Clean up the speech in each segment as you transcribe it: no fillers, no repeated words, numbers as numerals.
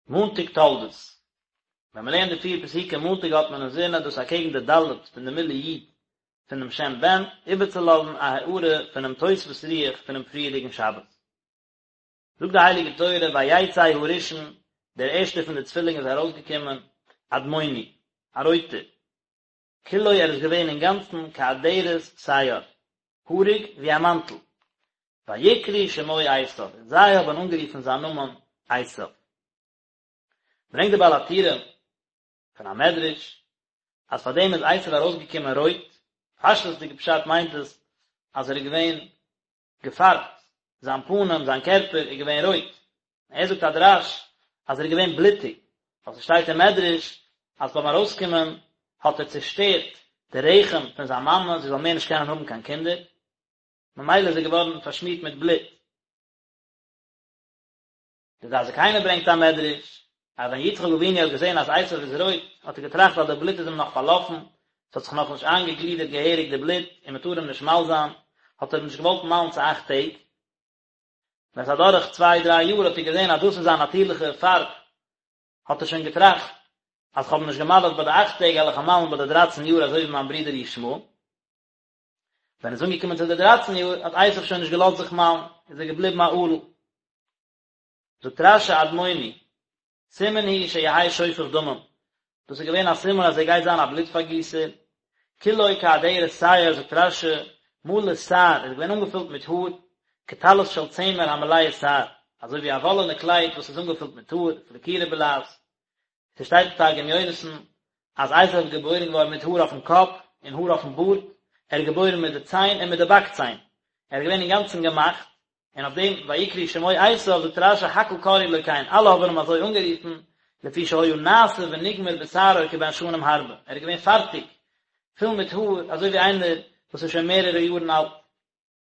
מאנטאג תולדות. ווען מען לערנט די פיר פסוקים מאנטאג האט מען אינזין אז דאס אקעגן די ד' פון די מילוי י' פונעם שם בן, איבערצולאזן א הארה פונעם תוספות רוח פונעם פריערדיגן שבת. זאגט די הייליגע תורה ויצא הראשון, דער ערשטער פון די צווילינג איז ארויסגעקומען, אדמוני, א רויטער, כולו ער איז געווען אינגאנצן כאדרת שער, האריג ווי א מאנטל, ויקראו שמו עשיו, און זיי האבן אנגערופן זיין נאמען עשיו. ברענגט דער בעל הטורים פון א מדרש, אז פאר דעם איז עשיו ארויסגעקומען רויט, פשטות'דיגע פשט מיינט עס אז ער איז געווען געפארבט, זיין פנים, זיין קערפער איז געווען רויט, ער זאגט א דרש אז ער איז געווען בלוטיג, ווייל ס'שטייט אין מדרש אז ביים ארויסקומען האט ער צעשטערט די רחם פון זיין מאמע זי זאל מער נישט קענען האבן קיין קינדער, ממילא איז ער געווארן פארשמירט מיט בלוט. די דעת זקנים ברענגט א מדרש, אז ווען יצחק אבינו האט געזען אז עשיו איז רויט, האט ער געטראכט אז די בלוט איז אים נאך פארלאפן, עס האט זיך נאכנישט איינגעגלידערט געהעריג די בלוט, און מען טאר אים נישט מל זיין, האט ער אים נישט געוואלט מל'ן צו אכט טעג. ווען עס איז אדורך צוויי דריי יאר האט ער געזען אז דאס איז זיין נאטירליכע פארב, האט ער שוין געטראכט, אז כ'האב אים נישט געמל'ט ביי די אכט טעג, וועל איך אים מל'ן ביי די דרייצן יאר אזוי ווי מיין ברודער ישמעאל. ווען עס איז אנגעקומען צו די דרייצן יאר, האט עשיו שוין נישט געלאזט זיך מל'ן, איז ער געבליבן א ערל. זאגט רש"י אדמוני, סימן הוא שיהא שופך דמים, דאס איז געווען א סימן אז ער גייט זיין א בלוט פארגיסער, כולו כאדרת שער, זאגט רש"י, מלא שער, ער איז געווען אנגעפילט מיט האר, כטלית של צמר המלאה שער, אזוי ווי א וואלענע קלייד וואס איז אנגעפילט מיט האר, פלקירא בלע"ז. ס'שטייט אין תרגום יונתן אז עשו איז געבוירן געווארן מיט האר אויפן קאפ און האר אויפן בארד, ער איז געבוירן מיט די ציין און מיט די באק ציין, ער איז געווען אינגאנצן געמאכט, און אויף דעם ויקראו שמו עשו זאגט רש"י הכל קראו לו כן, אלע האבן אים אזוי אנגערופן, לפי שהיה נעשה ונגמר בשערו כבן שנים הרבה, ער איז געווען פארטיג, פול מיט האר, אזוי ווי איינער וואס איז שוין מערערע יארן אלט.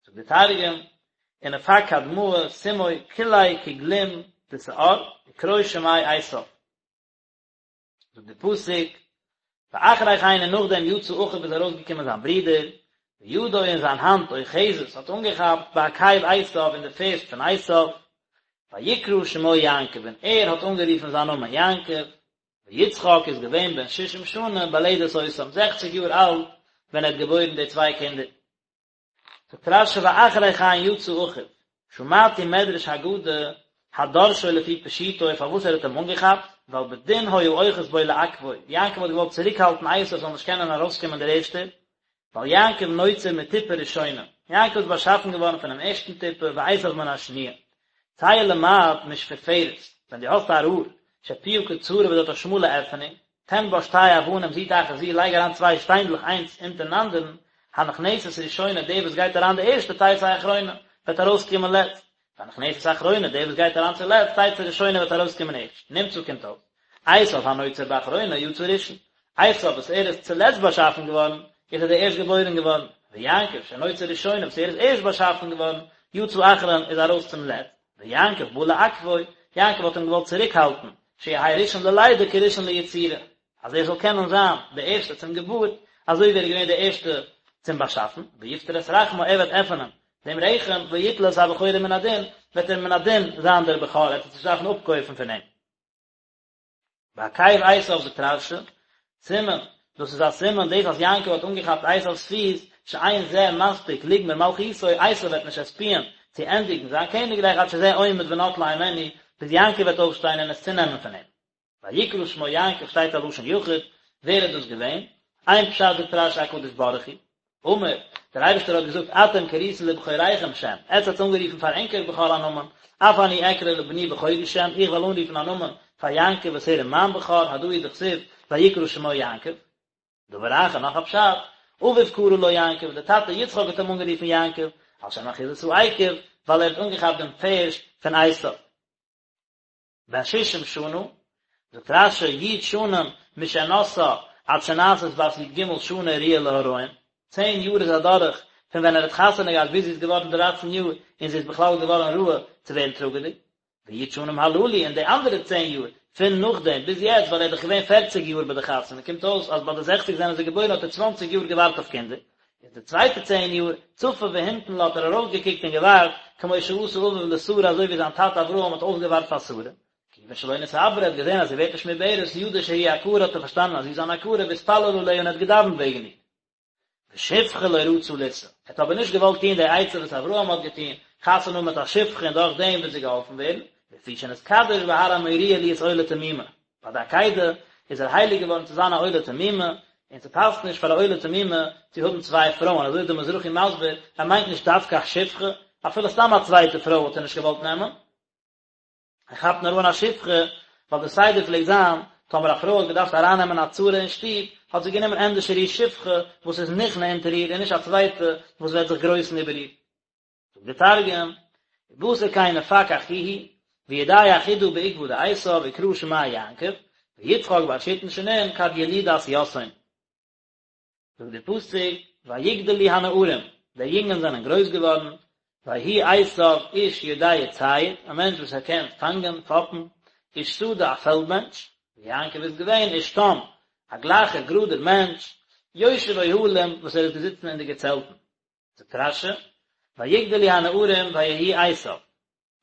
זאגט דער תרגום, ונפק קדמאה סומא כוליה כגלים דשער, וקרו שמיה עשו. זאגט דער פסוק, ואחרי כן און נאכדעם יצא אחיו איז ארויסגעקומען זיין ברודער, וידו און זיין האנט אוחזת האט אנגעכאפט בעקב עשו אין די פערשט פון עשו, ויקרא שמו יעקב און ער האט אנגערופן זיין נאמען יעקב, ויצחק איז געווען בן ששים שנה בלדת אותם, זעכציג יאר אלט ווען ער האט געבוירן די צוויי קינדער. זאגט רש"י ואחרי כן יצא אחיו, שמעתי מדרש אגדה הדורשו לפי פשוטו פארוואס ער האט אים אנגעכאפט, ווייל בדין היה אוחז בו לעכבו, יעקב האט געוואלט צוריקהאלטן עשו זאל נישט קענען ארויסקומען דער ערשטער, ווייל יעקב נוצר מטיפה ראשונה, יעקב איז באשאפן געווארן פונעם ערשטן טיפה ועשו מן השניה. צא ולמד משפופרת, ווען דו האסט א רור, שפיה קצרה וואס האט א שמאלע עפענונג, תן בה שתי אבנים זו תחת זו לייג אריין צוויי שטיינדלעך איינס אונטערן אנדערן, הנכנסת ראשונה די וואס גייט אריין די ערשטע תצא אחרונה וועט ארויסקומען לעצט, והנכנסת אחרונה די וואס גייט אריין צולעצט תצא ראשונה וועט ארויסקומען ערשט, נמצא קומט אויס, עשו הנוצר באחרונה יצא ראשון, עשו וואס ער איז צולעצט באשאפן געווארן, איז ער די ערשט געבוירן געווארן, ויעקב שנוצר ראשונה וואס ער איז ערשט באשאפן געווארן, יצא אחרון איז ארויס צום לעצט. ויעקב בא לעכבו, יעקב האט אים געוואלט צוריקהאלטן, שיהא ראשון ללידה כראשון ליצירה, אז ער זאל קענען זיין דער ערשטער צום געבורט, אזוי ווי ער איז געווען דער ערשטער צום באשאפן, ויפטר את רחמה, ער וועט עפענען דעם רחם, ויטול את הבכורה מן הדין, וועט ער מן הדין זיין דער בכור, ער וועט עס נישט דארפן אפקויפן פון אים. בעקב עשיו זאגט רש"י, סימן, דאס איז א סימן דאס אז יעקב האט אנגעכאפט עשיו'ס פיס, שאין זה מספיק לגמור מלכותו, עשיו וועט נישט עספיען צו ענדיגן זיין קעניגרייך עד שזה עומד ונוטלה הימנו, ביז יעקב וועט אויפשטיין און עס צונעמען פון אים. ויקרא שמו יעקב שטייט א לשון יחיד, ווער איז דאס געווען? איין פשט זאגט רש"י הקדוש ברוך הוא, אמר, דער אייבערשטער האט געזאגט אתם קריתם לבכוריכם שם, עטץ האטס אנגערופן פאר ענקער בכור א נאמען, אף אני אקרא לבני בכורי שם, איך וועל אנרופן א נאמען פאר יעקב וואס ער איז מיין בכור, הדא הוא דכתיב, ויקרא שמו יעקב. דבר אחר, נאך א פשט, אביו קרא לו יעקב, דער טאטע יצחק האט אים אנגערופן יעקב, על שם אחיזת העקב, ווייל ער האט אנגעכאפט דעם פערשט פון עשיו. בן ששים שנה, זאגט רש"י, י' שנים משנשאה עד שנעשית בת י"ג שנה ראויה להריון, צען יאר איז אדורך פון ווען ער האט חתונה געהאט ביז זי איז געווארן דרייצן יאר און זי איז בכלל געווארן ראוי צו ווערן טראגעדיג, וי' שנים הללו און די אנדערע צען יאר פון נאכדעם ביז יעצט ווייל ער איז דאך געווען פערציג יאר ביי די חתונה קומט אויס אז ביי די זעכציג זענען זיי געבוירן האט ער צוואנציג יאר געווארט אויף קינדער, איז די צווייטע צען יאר, צפה והמתין לה האט ער ארויסגעקוקט און געווארט, כמו שעשה אביו לשרה אזוי ווי זיין טאטע אברהם האט אויסגעווארט פאר שרה. כיוון שלא נתעברה, ער האט געזען אז זי ווערט נישט מעוברת, ידע שהיא עקרה האט ער פארשטאנען אז זי איז אן עקרה והתפלל עליה און ער האט געדאווענט וועגן איר. ושפחה לא רצה לישא, ער האט אבער נישט געוואלט טון די עצה וואס אברהם האט געטון, חתונה האבן מיט א שפחה און דורך דעם וועט זי געהאלפן ווערן, לפי שנתקדש בהר המוריה להיות עולה תמימה, ביי די עקידה איז ער הייליג געווארן צו זיין א עולה תמימה, און ס'פאסט נישט פאר א עולה תמימה צו האבן צוויי פרויען, אזוי איז דער מזרחי מסביר, ער מיינט נישט דווקא א שפחה, אפילו סתם א צווייטע פרוי וואלט ער נישט געוואלט נעמען. ער כאפט נאר אן א שפחה, ווייל די סדר פלעגט זיין, טאמער א פרוי האט געדארפט ארייננעמען א צרה אין שטוב, האט זי גענומען ענדערשער איר שפחה וואס איז נכנע אונטער איר און נישט א צווייטע וואס וועט זיך גרויסן איבער איר. זאגט דער תרגום, ובתר כן נפק אחוהי, וידע אחודה בעקבא דעשו וקרא שמיה יעקב, ויצחק בר שיתין שנין כד ילידת יתהון. זאגט דער פסוק, ויגדלו הנערים, די יונגען זענען גרויס געווארן, ויהי עשו איש יודע ציד, א מענטש וואס ער קען פאנגען, פאפן, איש שדה, א פעלד מענטש, ויעקב איז געווען איש תם, א גלייכער גראדער מענטש, יושב אוהלים, וואס ער איז געזיצן אין די געצעלטן. זאגט רש"י, ויגדלו הנערים ויהי עשו,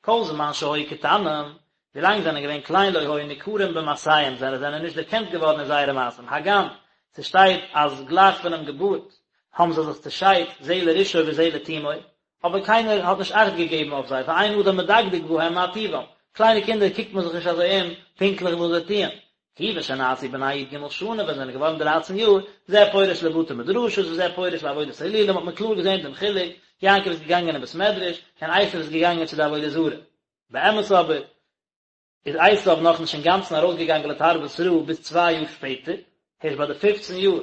כל זמן שהיו קטנים, ווילאנג זיי זענען געווען קליין לא היו ניכרים במעשיהם, זיי זענען נישט דערקענט געווארן אין זייערע מעשים, הגם ס'שטייט אז גלייך פונעם געבורט האבן זיי זיך צעשיידט זה לרשעו וזה לתומו, אבער קיינער האט נישט אכט געגעבן אויף זיי, ואין אדם מדקדק בהם מה טיבם, קליינע קינדער קוקט מען זיך נישט אזוי אום פונקטליך וואס זיי טוען, כיוון שנעשו בני י"ג שנה ווען זיי זענען געווארן דרייצן יאר, זה פורש לבתי מדרשות וזה פורש לעבודת אלילים האט מען קלאר געזען דעם חילוק, יעקב איז געגאנגען אין בית מדרש, און עשו איז געגאנגען צו די עבודה זרה. באמת אבער איז עשו נאכנישט אינגאנצן ארויסגעגאנגען לתרבות רעה ביז צוויי יאר שפעטער, הערשט ביי די פופצן יאר,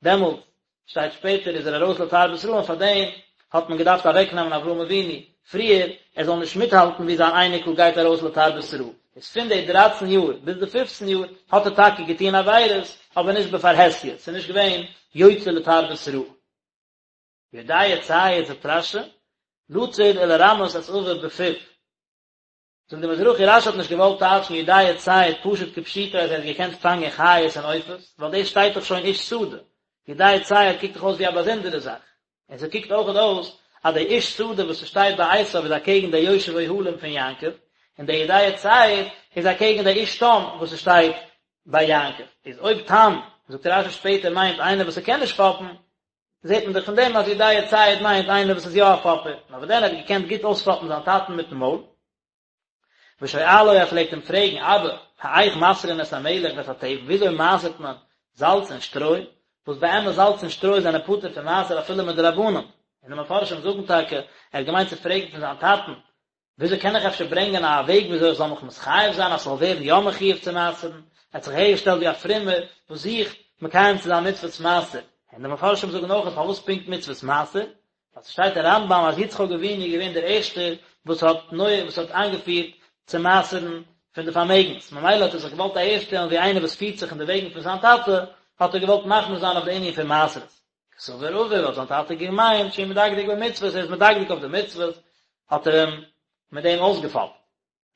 דעמאלטס שטייט שפעטער איז ער ארויס לתרבות רעה און פאר דעם האט מען געדארפט אוועק נעמען אברהם אבינו פריער ער זאל נישט מיטהאלטן ווי זיין אייניקל גייט ארויס לתרבות רעה, איז פון די דרייצן יאר ביז די פופצן יאר האט ער טאקע געטון עבירות אבער נישט בפרהסיא, ס'איז נישט געווען יוצא לתרבות רעה. יודע ציד זאגט רש"י, לצוד ולרמות את אביו בפיו. זאגט די מזרחי רש"י האט נישט געוואלט טייטשן יודע ציד פשוט כפשוטו אז ער האט געקענט פאנגען חיות און עופות, ווייל דאס שטייט דאך שוין איש שדה, יודע ציד קוקט דאך אויס ווי א באזונדערע זאך, און ס'קוקט אויכעט אויס אז די איש שדה וואס ס'שטייט ביי עשיו איז אקעגן די יושב אוהלים פון יעקב, און די יודע ציד איז אקעגן די איש תם וואס ס'שטייט ביי יעקב, איז אויב תם, זאגט רש"י שפעטער מיינט איינער וואס ס'קען נישט פאפן, זעט מען דאך פון דעם אז יודע ציד מיינט איינער וואס איז יא א פאפער, נאר וואס דען ער האט געקענט גוט אויספאפן זיין טאטן מיטן מויל. ושואלו ער פלעגט אים פרעגן, אבא, האיך מעשרין את המלח ואת התבן, וויאזוי מעשר'ט מען זאלץ און שטרוי, וואס באמת זאלץ און שטרוי זענען פטור פון מעשר אפילו מדרבנן, און די מפרשים זאגן טאקע, ער האט געמיינט צו פרעגן פון זיין טאטן, וויאזוי קען איך אפשר ברענגען א וועג וויאזוי איך זאל מיך מתחייב זיין אז ס'זאל ווערן יא מחויב צו מעשר'ן? ער האט זיך אהערגעשטעלט ווי א פרומער וואס זוכט מקיים צו זיין מצוות מעשר. און די מפרשים זאגן אויך פארוואס פונקט מצוות מעשר? ווייל ס'שטייט אין רמב"ם אז יצחק אבינו איז געווען דער ערשטער וואס האט נוהג וואס האט איינגעפירט צו מעשר'ן פון די פארמעגנס, ממילא האט ער זיך געוואלט אהערשטעלן ווי איינער וואס פירט זיך אין די וועגן פון זיין טאטע, האט ער געוואלט מחמיר זיין אויף די ענין פון מעשרות. קסבר אביו האט זיין טאטע געמיינט שהוא מדקדק במצוות, ער איז מדקדק אויף די מצוות, האט ער אים מיט דעם אויסגעפאפט.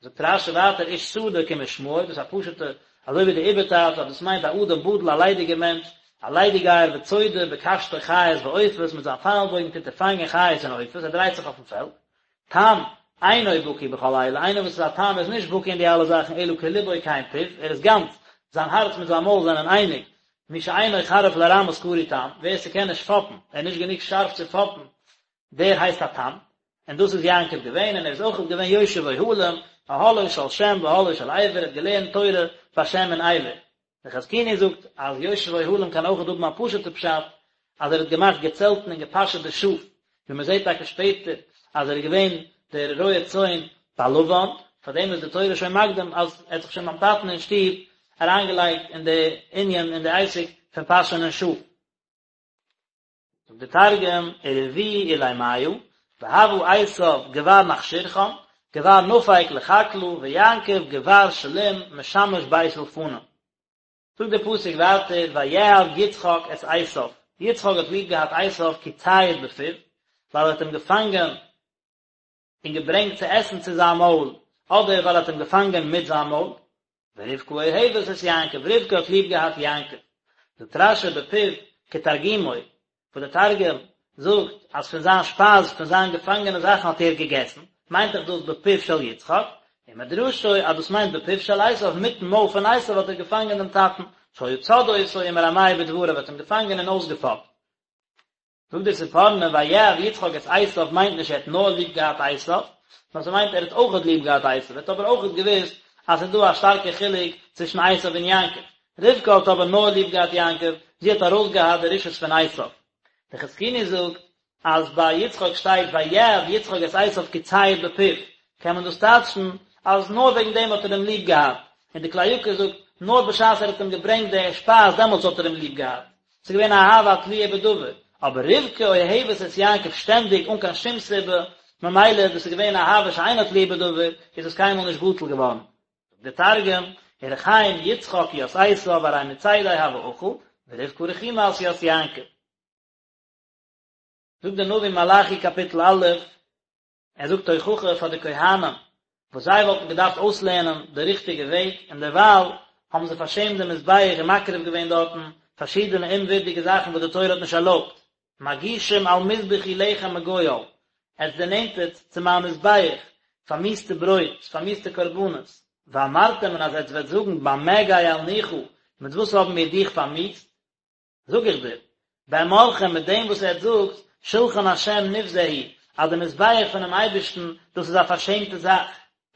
זאגט רש"י ווייטער איש שדה כמשמעו, דאס איז א פשוטע, אזוי ווי די איבערטייטש אז דאס מיינט א אדם בטל א ליידיגער מענטש, א ליידיגייער וצודה בקשתו חיות ועופות, מיט זיין פייל בויגן טוט ער פאנגען חיות און עופות, ער דרייט זיך אויפן פעלד. תם, אינו בקי בכל אלה, איינער וואס איז א תם איז נישט בקי אין די אלע זאכן אלא כלבו כן פיו, ער איז גאנץ, זיין הארץ מיט זיין מויל זענען אייניג, מי שאינו חריף לרמות קרוי תם, ווער ס'קען נישט פאפן, ער איז נישט גענוג שארף צו פאפן, דער הייסט א תם, און דאס איז יעקב געווען, און ער איז אויך געווען יושב אוהלים, אהלו של שם ואהלו של עבר, ער האט געלערנט תורה ביי שם און עבר. דער חזקוני זאגט אז יושב אוהלים קען אויך האבן א פשוט'ע פשט, אז ער האט געמאכט געצעלטן און געפאשעט די שאף, ווי מען זעט טאקע שפעטער אז ער איז געווען דער רועה צאן ביי לבן, פאר דעם איז די תורה שוין מקדים אז ער האט זיך שוין ביים טאטן אין שטוב אריינגעלייגט אין די ענין אין די עסק פון פאשענען שאף. זאגט דער תרגום, ורביאו עולימיא, והוה עשו גבר מכשירכן, גבר נפיק לחקלא, ויעקב גבר שלים משמש בית אולפנא. זאגט דער פסוק ווייטער, ויאהב יצחק את עשו, יצחק האט ליב געהאט עשו כי ציד בפיו, ווייל ער האט אים געפאנגען און געברענגט צו עסן צו זיין מויל, אדער ווייל ער האט אים געפאנגען מיט זיין מויל. ורבקה אוהבת את יעקב, רבקה האט ליב געהאט יעקב. זאגט רש"י בפיו כתרגומו, וואס דער תרגום זאגט אז פון זיין שפייז, פון זיין געפאנגענע זאכן האט ער געגעסן, מיינט דאך דאס בפיו של יצחק. ומדרשו אז דאס מיינט בפיו של עשיו, מיטן מויל פון עשיו האט ער געפאנגען דעם טאטן, שהיה צד אותו ומרמהו בדבריו האט אים געפאנגען און אויסגעפאפט. זאגט דער ספורנו ויאהב יצחק את עשיו מיינט נישט ער האט נאר ליב געהאט עשיו, נאר ס'מיינט ער האט אויכעט ליב געהאט עשיו, ער האט אבער אויכעט געוואוסט אז ס'איז דא א שטארקע חילוק צווישן עשיו און יעקב. רבקה האט אבער נאר ליב געהאט יעקב, זי האט ארויסגעהאט די רשעות פון עשיו. דער חזקוני זאגט אז ביי יצחק שטייט ויאהב יצחק את עשיו כי ציד בפיו, קען מען דאס טייטשן אז נאר וועגן דעם האט ער אים ליב געהאט, און די כלי יקר זאגט נאר בשעת ער האט אים געברענגט די שפייז דעמאלטס האט ער אים ליב געהאט, ס'איז געווען א אהבה התלויה בדבר, אבער רבקה אוהבת את יעקב שטענדיג אן קיין שום סיבה, ממילא דאס איז געווען אהבה שאינה תלויה בדבר, איז עס קיינמאל נישט בטל געווארן. זאגט דער תרגום, ורחים יצחק ית עשו ארי מצידיה הוה אכיל, ורבקה רחימת ית יעקב. זאגט דער נביא מלאכי קאפיטל א', ער זאגט תוכחה פאר די כהנים וואס זיי וואלטן געדארפט אויסלערנען די ריכטיגע וועג, און דערווייל האבן זיי פארשעמט דעם מזבח און מקריב געווען דארטן פארשידענע אומווירדיגע זאכן וואס די תורה האט נישט ערלויבט. מגישים על מזבחי לחם מגואל, עטס דערנענטערט צו מיין מזבח פארמיאוסטע ברויט, פארמיאוסטע קרבנות, ואמרתם און אז עטס וועט זאגן במה גאלנוך, מיט וואס האבן מיר דיך פארמיאוסט? זאג איך דיר, באמרכם מיט דעם וואס עטס זאגט, שלחן השם נבזה הוא, אז די מזבח פונעם אייבערשטן, דאס איז א פארשעמטע זאך.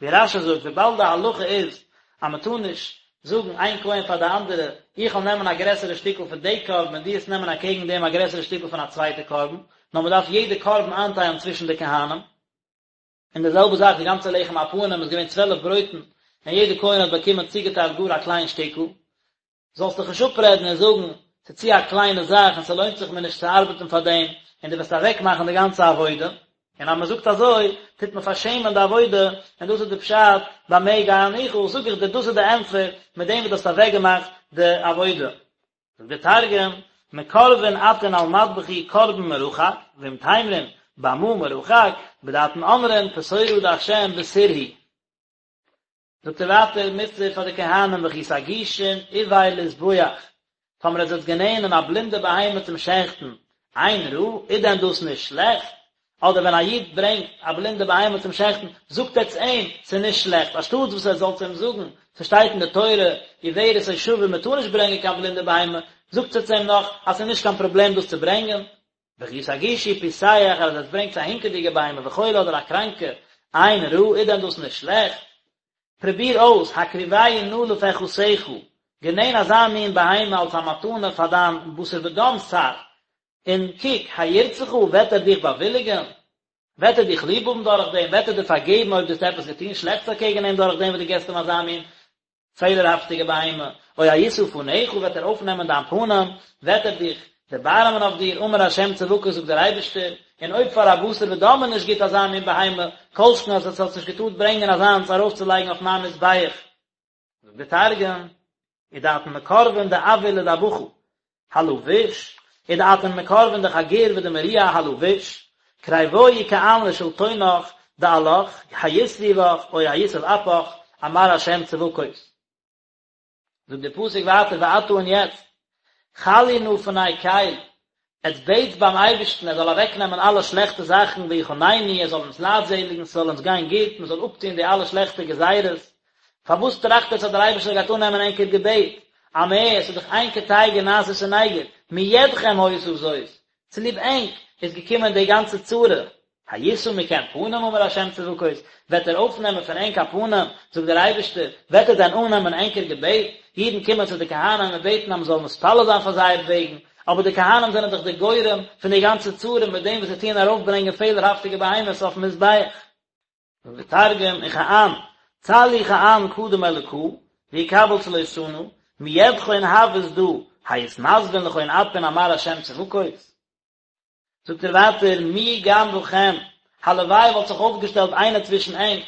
ווי רש"י זאגט, וויבאלד די הלכה איז אז מען טאר נישט זאגן איין כהן פאר די אנדערע, איך וועל נעמען א גרעסערע שטיקל פון די קרבן און דו וועסט נעמען אקעגן דעם א גרעסערע שטיקל פון א צווייטע קרבן, נאר מען דארף יעדע קרבן איינטיילן צווישן די כהנים. און די זעלבע זאך די גאנצע לחם הפנים איז געווען צוועלף ברויטן, און יעדע כהן האט באקומען צוגעטיילט גאר א קליין שטיקל. זאלסט דיך נישט אפרעדן און זאגן, ס'איז צו א קליינע זאך און ס'לוינט זיך מיר נישט צו ארבעטן פאר דעם, און דו וועסט אוועקמאכן די גאנצע עבודה. און אז מ'זאגט אזוי, טוט מען פארשעמען די עבודה, און דאס איז די פשט, במה גאלנוך, זאג איך דיר, דאס איז די ענטפער, מיט דעם וואס דו האסט אוועקגעמאכט די עבודה. זאגט דער תרגום, מקרבין אתון על מדבחי קרבן מרחק, ואם תימרון, במה מרחק, בדאתון אמרין, פתורא דהשם בסור הוא. זאגט ער ווייטער מוסר פאר די כהנים וכי תגישון עור לזבוח, טאמער עטס וועט גענענען א בלינדע בהמה צום שעכטן, אין רע, איז דען דאס נישט שלעכט? אדער ווען א איד ברענגט א בלינדע בהמה צום שעכטן, זאגט עטס אים, ס'איז נישט שלעכט, אנשטאטס וואס עטס זאלטס אים זאגן, ס'שטייט אין די תורה, עורת או שבור, מ'טאר נישט ברענגען קיין בלינדע בהמה, זאגט עטס אים נאך אז ס'איז נישט קיין פראבלעם דאס צו ברענגען. וכי תגישו פסח אז עטס ברענגטס א הינקעדיגע בהמה וחולה אדער א קראנקע, אין רע, איז דען דאס נישט שלעכט? פרוביר אויס, הקריבהו נא לפחתך, גענען אזא מין בהמה אלס א מתנה פאר דיין בשר ודם שר, און קוק, הירצך, וועט ער דיך באוויליגען? וועט ער דיך ליב האבן דורך דעם? וועט ער דיר פארגעבן אויב דו האסט עפעס געטון שלעכטס אקעגן אים דורך דעם וואס דו געסט אים אזא מין פעלערהאפטיגע בהמה, או הישא פניך וועט ער אויפנעמען דיין פנים, וועט ער דיך דערבארעמען אויף דיר, אמר ה' צבקות זאגט דער אייבערשטער, און אויב פאר א בשר ודם איז נישט גוט אזא מין בהמה, כל שכן אז עטס האטס נישט געטארט ברענגען אזאנס ארויפצולייגן אויף מיין מזבח. זאגט דער תרגום, ודאתון מקרבין דעויר לדבחא, הלא ביש, ודאתון מקרבין דחגור ודמריע הלא ביש, קריבוהי כען לשלטונך דעלך, הישריא בך, או היסב אפך, אמר השם צבקות. זאגט דער פסוק ווייטער ועתה און יעצט, חלו נא פני קל, עטס בעטס ביים אייבערשטן ער זאל אוועקנעמען אלע שלעכטע זאכן ויחננו, ער זאל אונז לייטזעליגן, ס'זאל אונז גיין גוט, מען זאל אפטון די אלע שלעכטע גזירות, פארוואס טראכט עטס אז דער אייבערשטער גייט אננעמען ענקער געבעט? אמער, ס'איז דאך אין קטיגור נעשה סניגור, מידכם היתה זאת, צוליב ענק איז געקומען די גאנצע צרה. הישא מכם פנים אמר ה' צבקות, וועט ער אויפנעמען פון ענק א פנים, זאגט דער אייבערשטער, וועט ער דען אננעמען ענקער געבעט? אידן קומען צו די כהנים און בעטן אז מען זאל מתפלל זיין פאר זייער וועגן, אבער די כהנים זענען דאך די גורם פון די גאנצע צרה מיט דעם וואס זיי טוען ארויפברענגען פעלערהאפטיגע בהמות אויפן מזבח. זאגט דער תרגום, וכען, צלו כען קדם אלקא, ויקבל צלותנא, מידכון הות דא, היתנסבון לכון אפין אמר ה' צבקות. זאגט ער ווייטער, מי גם בכם, הלוואי וואלט זיך אויפגעשטעלט איינער צווישן ענק,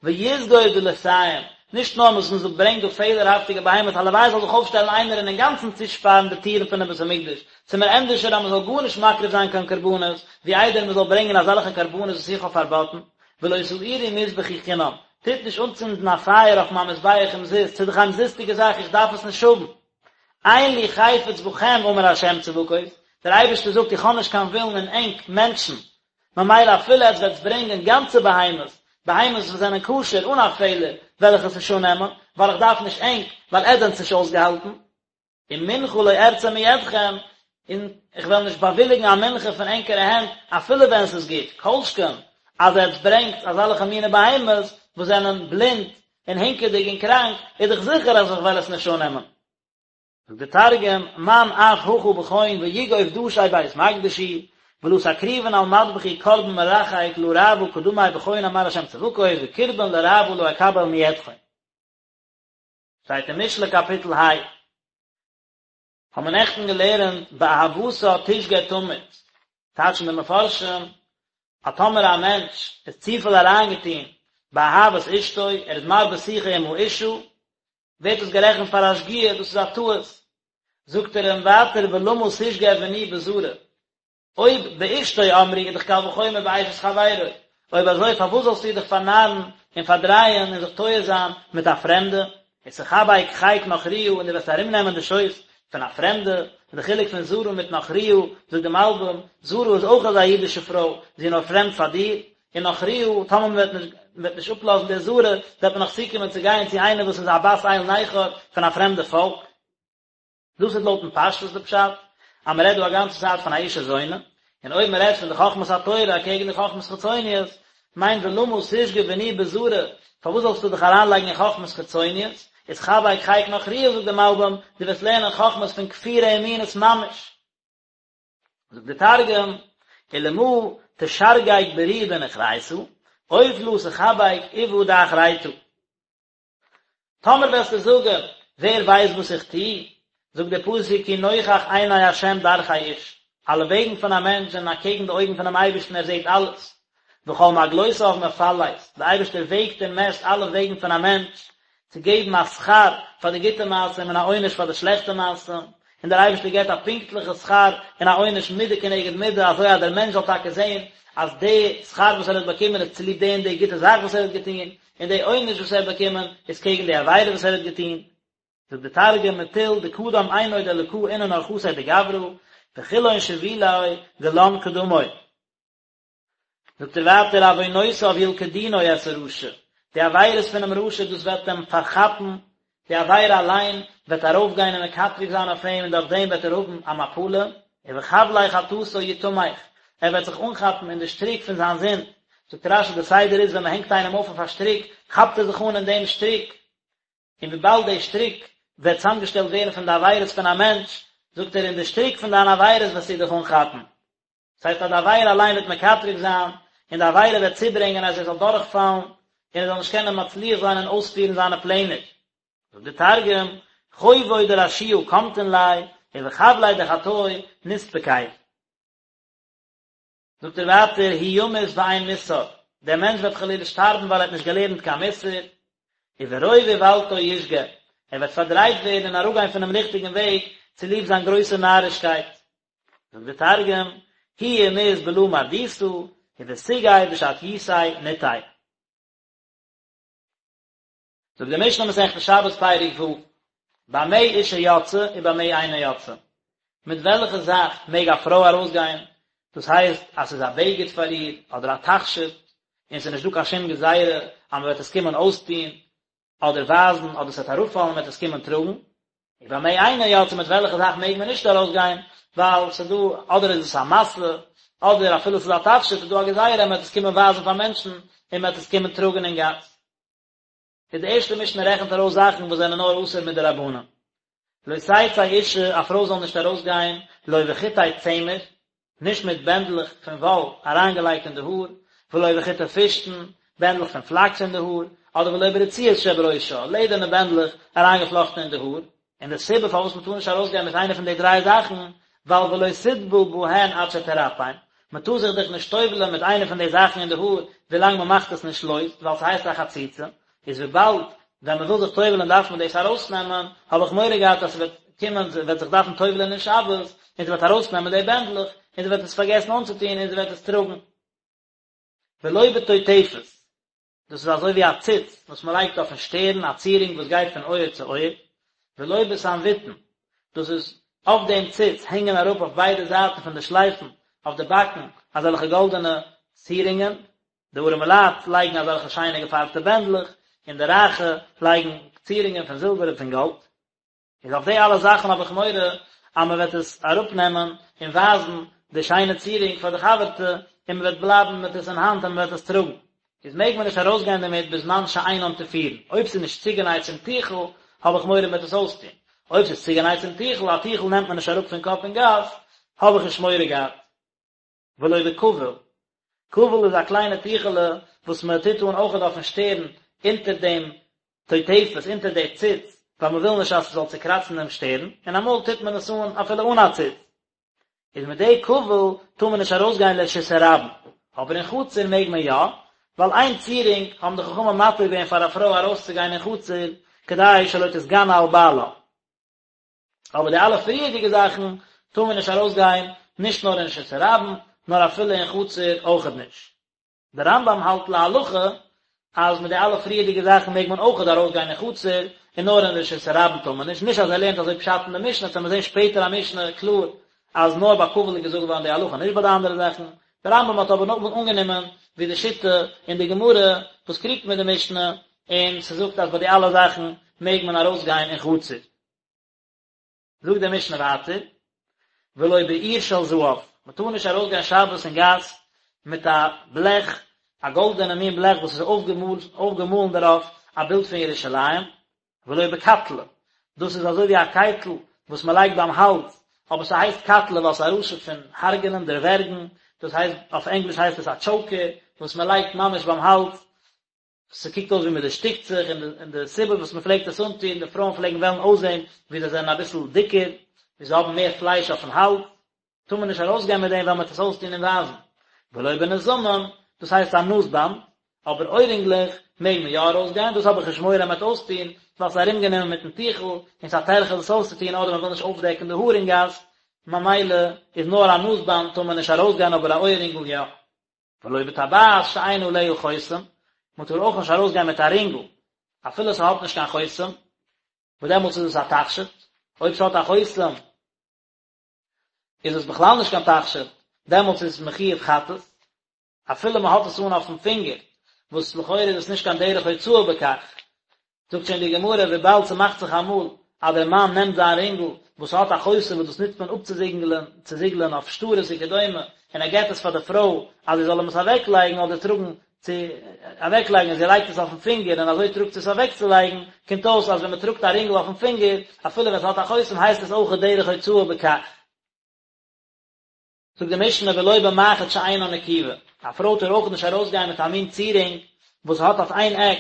ויסגור דלתים, נישט נאר וואס מען ברענגט דא פעלערהאפטיגע בהמות, הלוואי זאל זיך אויפשטעלן איינער און אינגאנצן צושפארן די טירן פונעם בית המקדש, ס'איז מיר ענדערשער אז מען זאל גארנישט מקריב זיין קיין קרבנות, ווי איידער מען זאל ברענגען אזעלכע קרבנות וואס איך האב פארבאטן, ולא תאירו מזבחי חינם, טוט נישט אנצינדן א פייער אויף מיין מזבח אומזיסט, ס'איז דאך א אומזיסטיגע זאך, איך דארף עס נישט האבן. אין לי חפץ בכם אמר ה' צבקות, דער אייבערשטער זאגט איך האב נישט קיין ווילן אין ענק מענטשן, ממילא אפילו עטס וועטס ברענגען גאנצע בהמות, בהמות וואס זענען כשר אן א פעלער וועל איך עס נישט אננעמען, ווייל איך דארף נישט ענק, ווייל עטס זענטס נישט אויסגעהאלטן. ומנחה לא ארצה מידכם, און איך וועל נישט באוויליגן א מנחה פון ענקערע הענט, אפילו ווען ס'איז גוט, כל שכן אז עטס ברענגטס אזעלכע מיני בהמות וואס זענען בלינד און הינקעדיג און קראנק, איז דאך זיכער אז איך וועל עס נישט אננעמען. זאגט דער תרגום, מאן אף הכא בכון ויגוף דשי בית מקדשי, ולא תקריבון על מדבחי קרבן מרחק לרעוא קדמי בכון אמר ה' צבקות וקרבן לרעוא לא אקבל מידכון. שטייט אין משלי קאפיטל ה. האבן מיר נעכטן געלערנט באהבתה תשגה תמיד, טייטשן די מפרשים אז טאמער א מענטש איז צופיל אריינגעטון באהבת אשתו, ער איז מרבה שיחה עם האשה, ווערט דאס גערעכנט פאר א שגיאה, דאס איז א טעות. זאגט ער אים ווייטער ולמה תשגה בני בזרה, אויב באשתו אמרו איז דאך קל וחומר באשת חברו, אויב אזוי פארוואס זאלסטו דיך פארנארן און פארדרייען און זיך טועה זיין מיט א פרעמדע, ותחבק חיק נכריה און דו וועסט ארומנעמען די שויס פון א פרעמדע, און די חילוק פון זרה מיט נכריה, זאגט די מלבים, זרה איז אויך אזא אידישע פרוי, זי איז נאר פרעמד פאר דיר, און נכריה, טאמער מען וועט נישט מען וועט נישט אפלאזן די זרה, וועט מען נאך צוקומען צו גיין צו איינער וואס איז א בת אל נכר פון א פרעמדע פאלק. דאס איז לויטן פשטות די פשט, אז מען רעדט דא א גאנצע צייט פון א אישה זונה, און אויב מען רעדט פון די חכמת התורה אקעגן די חכמות חיצוניות, מיינט ולמה תשגה בני בזרה, פארוואס זאלסטו דיך אריינלייגן אין חכמות חיצוניות, ותחבק חיק נכריה זאגט די מלבים, דו וועסט לערנען חכמות פון כפירה און מינות ממש. זאגט די תרגום, ולמה תשרגג ברי בנוכריתא, אוף לא תחבק אובא דאחריתא. טאמער וועסטו זאגן, ווער ווייסט וואס איך טו? זאגט דער פסוק, כי נוכח עיני ה' דרכי איש, אלע וועגן פון א מענטש זענען אקעגן די אויגן פונעם אייבערשטן, ער זעט אלעס. וכל מעגלותיו מפלס, דער אייבערשטער וועגט און מעסט אלע וועגן פון א מענטש, צו געבן א שכר פאר די גוטע מעשים און א עונש פאר די שלעכטע מעשים, און דער אייבערשטער געבט א פונקטליכע שכר און א עונש מידה כנגד מידה, אזוי אז דער מענטש זאל טאקע זען אז די שכר וואס ער האט באקומען איז צוליב די און די גוטע זאך וואס ער האט געטון, און די עונש וואס ער האט באקומען איז קעגן די עבירה וואס ער האט געטון. זאגט די תרגום מטול דקדם עינוי דאלקא אינון ארחתיה דגברא, וכולהון שבילי גלן קדמוי. זאגט ער ווייטער עוונותיו ילכדונו את הרשע, די עבירות פונעם רשע דאס וועט אים פארכאפן, די עבירה אליין וועט ארויפגיין און מקטרג זיין אויף אים און דורך דעם וועט ער האבן א מפלה, ובחבלי חטאתו יתמך, ער וועט זיך אנכאפן אין די שטריק פון זיין זינד, זאגט רשי די סדר איז ווען מען הענגט איינעם אויף אויף א שטריק כאפט ער זיך אן אין דעם שטריק, און וויבאלד די שטריק וועט צוזאמגעשטעלט ווערן פון די עבירות פון א מענטש, זאגט ער אין די שטריק פון דיינע עבירות וועסטו דיך אנכאפן. דאס הייסט אז די עבירה אליין וועט מקטרג זיין, און די עבירה וועט צוברענגען אז ער זאל דורכפאלן, און ער זאל נישט קענען מצליח זיין און אויספירן זיינע פלענער. זאגט די תרגום, חובוי דרשיעא קמטין ליה, ובחבלי דחטוי נסתפקיה. זאגט ער ווייטער, הוא ימות ואין מוסר, דער מענטש וועט חלילה שטארבן ווייל ער האט נישט געלערנט קיין מוסר, וברוב איוולתו ישגה, ער וועט פארדרייט ווערן און אראפגיין פונעם ריכטיגן וועג צוליב זיין גרויסע נארישקייט. זאגט די תרגום, הוא ימות בלא מרדותא, ובסוגי בשטיותיה נטעי. זאגט די משנה מסכת שבת פרק ו', במה אשה יוצאה ובמה אינה יוצאה, מיט וועלכע זאך מעג א פרוי ארויסגיין, דאס הייסט אז ס'איז א בגד פאר איר אדער א תכשיט, און ס'איז נישט דא קיין שום גזירה אז מ'וועט עס קומען אויסטון אדער ווייזן אדער ס'וועט אראפפאלן מ'וועט עס קומען טראגן, ובמה אינה יוצאה מיט וועלכע זאך מעג מען נישט ארויסגיין, ווייל ס'איז דא אדער איז עס א משא, אדער אפילו ס'איז א תכשיט איז דא א גזירה אז מ'וועט עס קומען ווייזן פאר מענטשן און מ'וועט עס קומען טראגן אין גאס. איז די ערשטע משנה רעכנט ארויס זאכן וואס זענען נאר אסור מדרבנן. לא תצא אישה, א פרוי זאל נישט ארויסגיין, לא בחוטי צמר, נישט מיט בענדלעך פון וואל אריינגעלייגט אין די האר, ולא בחוטי פשתן, בענדלעך פון פלאקס אין די האר, אדער ולא ברצועות שבראשה, לעדערנע בענדלעך אריינגעפלאכטן אין די האר, און די סיבה פארוואס מען טאר נישט ארויסגיין מיט איינע פון די דריי זאכן, ווייל ולא תטבול בהן עד שתרפם, מען טאר זיך דאך נישט טובל'ען מיט איינע פון די זאכן אין די האר ווילאנג מען מאכט עס נישט לויז, ווייל ס'הייסט א חציצה, איז וויבאלד ווען מען וויל זיך טובל'ען דארף מען דאס ארויסנעמען, האב איך מורא געהאט אז ס'וועט קומען זי וועט זיך דארפן טובל'ען אין שבת, און זי וועט ארויסנעמען די בענדלעך, און זי וועט עס פארגעסן אנצוטון און זי וועט עס טראגן. ולא בטוטפת, דאס איז אזוי ווי א ציץ וואס מען לייגט אויפן שטערן, א צירונג וואס גייט פון אויער צו אויער, ולא בסנבוטין, דאס איז אויף דעם ציץ הענגען אראפ אויף ביידע זייטן פון די שלייפן אויף די באקן אזעלכע גאלדענע צירונגען. די ארעמע לייט לייגן אזעלכע שיינע געפארבטע בענדלעך, און די רייכע לייגן צירונגען פון זילבער און פון גאלד. איז אויף די אלע זאכן האב איך מורא אז מען וועט עס אראפנעמען און ווייזן די שיינע צירונג פאר די חבר'טע, און מען וועט בלייבן מיט עס אין האנט און מען וועט עס טראגן. איז מעג מען נישט ארויסגיין דערמיט בזמן שאינן תפורין. אויב ס'איז נישט צוגענייט צום טיכל, האב איך מורא מען וועט עס אויסטון. אויב ס'איז צוגענייט צום טיכל, א טיכל נעמט מען נישט אראפ פון קאפ אין גאס, האב איך נישט מורא געהאט. ולא בכבול, כבול איז א קליינע טיכעלע וואס מען טוט אן אויכעט אויפן שטערן אונטער דעם טוטפת, אונטער די ציץ, ווייל מען וויל נישט אז ס'זאל צוקראצן דעם שטערן, און אמאל טוט מען עס אן אפילו אן א ציץ. איז מיט די כבול טאר מען נישט ארויסגיין לרשות הרבים, אבער אין חצר מעג מען יא, ווייל איין צירונג האבן די חכמים מתיר געווען פאר א פרוי ארויסצוגיין אין חצר כדי שלא תתגנה על בעלה. אבער די אלע פריערדיגע זאכן טאר מען נישט ארויסגיין, נישט נאר אין רשות הרבים, נאר אפילו אין חצר אויכעט נישט. דער רמב"ם האלט להלכה אז מיט די אלע פריערדיגע זאכן מעג מען אויכעט ארויסגיין אין חצר, און נאר אין רשות הרבים טאר מען נישט, נישט אז ער לערנט אזוי פשט אין די משנה, וועט מען זען שפעטער א משנה קלאר אז נאר ביי כבול איז געזאגט געווארן די הלכה נישט ביי די אנדערע זאכן, דער רמב"ם האט אבער נאכדעם אנגענומען ווי די שיטה אין די גמרא וואס קריגט מיט די משנה, און ס'זאגט אז ביי די אלע זאכן מעג מען ארויסגיין אין חצר. זאגט די משנה ווייטער, ולא באור של זהב, מען טאר נישט ארויסגיין שבת אין גאס מיט א בלעך, א גאלדענע מין בלעך וואס איז אויפגעמאלן דערויף א בילד פון ירושלים, ולא בקטלא, דאס איז אזוי ווי א קייטל וואס מען לייגט ביים האלז, אבער ס'הייסט קטלא ווייל ס'איז א לשון פון הרג'נען, דערווערגן, דאס הייסט, אויף ענגליש הייסט עס א טשאוקער, וואס מען לייגט ממש ביים האלז, ס'קוקט אויס ווי מ'דערשטיקט זיך, און די און די סיבה וואס מ'פלעגט עס אנטון, די פרויען פלעגן וועלן אויסזען ווי זיי זענען אביסל דיקער, ווי זיי האבן מער פלייש אויפן האלז, טאר מען נישט ארויסגיין מיט דעם ווייל מ'וועט עס אויסטון און ווייזן. ולא בנזמים, דאס הייסט א נאז באנד, אבער אוירינגלעך מעג מען יא ארויסגיין, דאס האב איך נישט מורא מ'וועט אויסטון, ווייל ס'איז ארומגענומען מיטן טיכל, און ס'איז א טרחה דאס אויסצוטון אדער מ'וויל נישט אויפדעקן די האר אין גאס, ממילא איז נאר א נאז באנד טאר מען נישט ארויסגיין אבער א אויערינגל יא. ולא בטבעת שאין עליה חותם, מען טאר אויך נישט ארויסגיין מיט א רינגל אפילו ס'האט נישט קיין חותם, וואס דעמאלטס איז עס א תכשיט, אויב ס'האט א חותם איז עס בכלל נישט קיין תכשיט, דעמאלטס איז עס מחויב חטאת, אפילו מען האט עס אן אויפן פינגער, וואס לכאורה איז עס נישט קיין דרך הוצאה בכך, זאגט שוין די גמרא וויבאלד ס'מאכט זיך אמאל אז דער מאן נעמט זיין רינגל וואס האט א חותם וואס דאס נוצט מען אפצוזיגלען צוזיגלען אויף שטרות וכדומה און ער געט עס פאר די פרוי אז זי זאל אים עס אוועקלייגן אדער טראגן צו אוועקלייגן און זי לייגט עס אויפן פינגער און אזוי טראגט זי עס אוועקצולייגן קומט אויס אז ווען מ'טראגט א רינגל אויפן פינגער אפילו ווען ס'האט א חותם הייסט עס אויך דרך הוצאה בכך. זאגט די משנה ולא במחט שאינה נקובה, א פרוי טאר אויך נישט ארויסגיין מיט א מין צירונג וואס האט אויף איין עק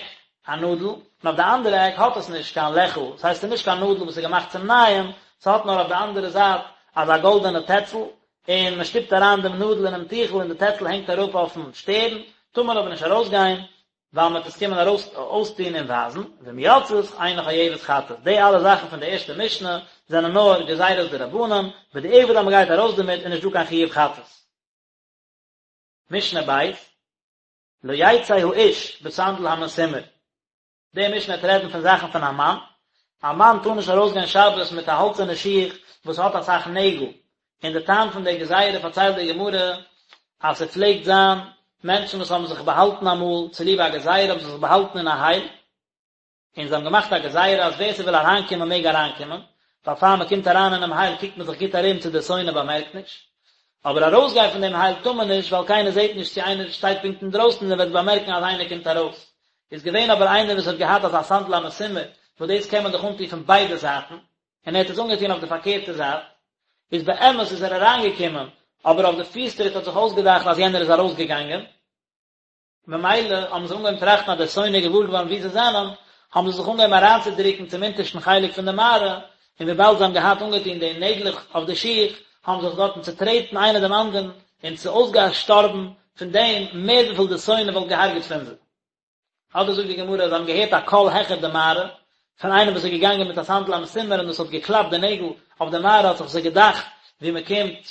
א נאדל און אויף די אנדערע עק האט עס נישט קיין לעכל, דאס הייסט ס'איז נישט קיין נאדל וואס איז געמאכט צום נייען, ס'האט נאר אויף די אנדערע זייט אזא גאלדענע טעצל, און מען שטופט אריין דעם נאדל אינעם טיכל און די טעצל הענגט אראפ אויפן שטערן, טאר מען אבער נישט ארויסגיין ווייל מען וועט עס קומען ארויס אויסטון און ווייזן, ואם יצאת אינה חייבת חטאת, די אלע זאכן פון די ערשטע משנה זענען נאר גזירות דרבנן, בדיעבד אז מען גייט ארויס דערמיט איז נישט דא קיין חיוב חטאת. משנה ב', לא יצא האיש בסנדל המסומר, די משנה וועט רעדן פון זאכן פון א מאן, א מאן טאר נישט ארויסגיין שבת מיט א האלצערנע שיך וואס האט אסאך נעגל, און די טעם פון די גזירה פארציילט די גמרא אז ס'פלעגט זיין מענטשן וואס האבן זיך באהאלטן אמאל צוליב א גזירה האבן זיי זיך באהאלטן אין א הייל, און זיי האבן געמאכט א גזירה אז ווער ס'וויל אריינקומען מעג אריינקומען, ווייל פאר מ'קומט אריין אינעם הייל קוקט מען זיך גוט ארום צו דער שונא באמערקט נישט, אבער ארויסגיין פון דעם הייל טאר מען נישט ווייל קיינער זעט נישט צו איינער שטייט פונקט אינדרויסן און ער וועט באמערקן אז איינער קומט ארויס. איז געווען אבער איינער וואס האט געהאט אזא סנדל המסומר וואס דאס קען מען דאך אנטון פון ביידע זייטן, און ער האט עס אנגעטון אויף די פארקערטע זייט, איז באמת איז ער אריינגעקומען, אבער אויף די פיס טריט האט זיך אויסגעדאכט אז יענער איז ארויסגעגאנגען, ממילא האבן זיי אנגעהויבן טראכטן אז דער שונא איז געוואר געווארן וואו זיי זענען, האבן זיי זיך אנגעהויבן אריינצודרוקן צום אונטערשטן חלק פון די מערה, און וויבאלד זיי האבן געהאט אנגעטון די נעגלעך אויף די שיך, האבן זיך דארטן צוטרעטן איינער דעם אנדערן, און ס'איז אויסגעשטארבן פון דעם מער וויפיל דער שונא וואלט געהארגעט פון זיי. אדער זאגט די גמרא אז זיי האבן געהערט א קול העכער די מערה, פון איינעם וואס איז געגאנגען מיט א סנדל המסומר און דאס האט געקלאפט די נעגל אויף די מערה האט זיך זיי געדאכט ווי מען קומט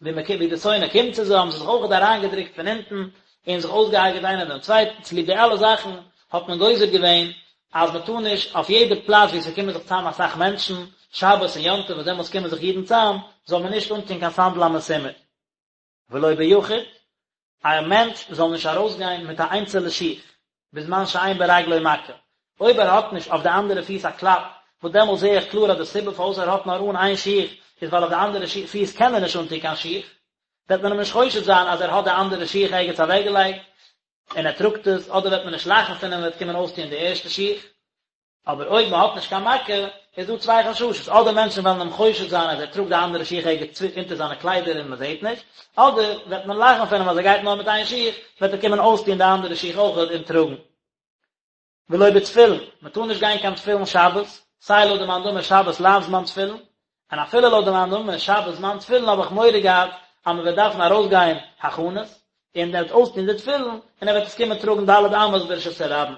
ווי מען ווי די שונא קומט צו זיי האבן זיי זיך אויכעט אריינגעדרוקט פון אונטן און זיך אויסגעהרגעט איינער דעם צווייטן, צוליב די אלע זאכן האט מען גוזר געווען אז מען טאר נישט אויף יעדע פלאץ וואו ס'קומען זיך צאם אסאך מענטשן, שבת און יום טוב וואס דעמאלטס קומען זיך אידן צאם, זאל מען נישט אנטון קיין סנדל המסומר. ולא ביחיד. א מענטש זאל נישט ארויסגיין מיט א איינצעלע שיך, בזמן שאין ברגלו מכה, אויב ער האט נישט אויף די אנדערע פיס א קלאפ, וואס דעמאלט זעה איך קלאר אז די סיבה פארוואס ער האט נאר אן איין שיך איז ווייל אויף די אנדערע פיס קען ער נישט אנטון קיין שיך, וועט מען אים נישט חושד זיין אז ער האט די אנדערע שיך ערגעץ אוועקגעלייגט און ער טראגט עס, אדער וועט מען נישט לאכן פון אים און וועט קומען אויסטון די ערשטע שיך. אבער אויב מען האט נישט קיין מכה, איז דא צוויי חששות, אדער מענטשן וועלן אים חושד זיין אז ער טראגט די אנדערע שיך ערגעץ אונטער זיינע קליידער און מען זעט נישט, אדער וועט מען לאכן פון אים אז ער גייט נאר מיט איין שיך, וועט ער קומען אויסטון די אנדערע שיך אויכעט און טראגן. ולא בתפילין, מען טאר נישט גיין קיין תפילין שבת, סיי לויט די מאן דאמר שבת לאו זמן תפילין, און אפילו לויט די מאן דאמר שבת זמן תפילין האב איך מורא געהאט אז מען וועט דארפן ארויסגיין הכנות, און ער וועט אויסטון די תפילין, און ער וועט עס קומען טראגן ד' אמות ברשות הרבים.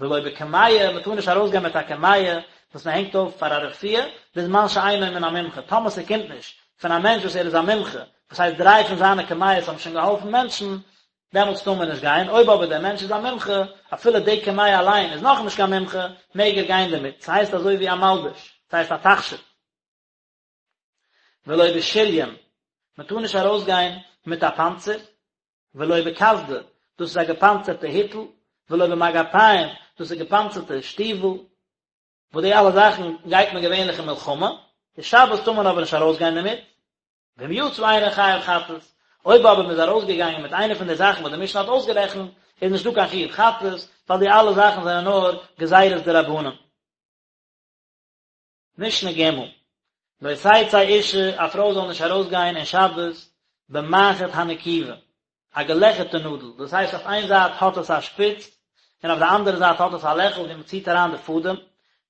ולא בקמיע, מען טאר נישט ארויסגיין מיט א קמיע וואס מען הענגט אויף פאר א רפואה, בזמן שאינו מן המומחה, טאמער ס'קומט נישט פון א מענטש וואס ער איז א מומחה, וואס הייסט דריי פון זיינע קמיעות האבן שוין געהאלפן מענטשן, דעמאלטס טאר מען נישט גיין, אויב אבער דער מענטש איז א מומחה, אפילו די קמיע אליין איז נאכנישט קיין מומחה, מעג ער גיין דערמיט, ס'הייסט אזוי ווי א מלבוש, ס'הייסט א תכשיט. ולא בשריון, מען טאר נישט ארויסגיין מיט א פאנצער, ולא בקסדה, דאס איז א געפאנצערטע היטל, ולא במגפיים, דאס איז געפאנצערטע שטיוול, וואס די אלע זאכן גייט מען געווענליך אין מלחמה, די שבת טאר מען אבער נישט ארויסגיין דערמיט, ואם יצא אינו חייב חטאת, אויב אבער מען איז ארויסגעגאנגען מיט איינע פון די זאכן וואס די משנה האט אויסגערעכנט, איז נישטא קיין חיוב חטאת, ווייל די אלע זאכן זענען נאר גזירות דרבנן. משנה ג', לא תצא אשה, א פרוי זאל נישט ארויסגיין אין שבת במחט הנקובה, א געלעכערטע נאדל, דאס הייסט אויף איין זייט האט עס א שפיץ, און אויף די אנדערע זייט האט עס א לעכל ווי מען ציט אריין די פאדעם,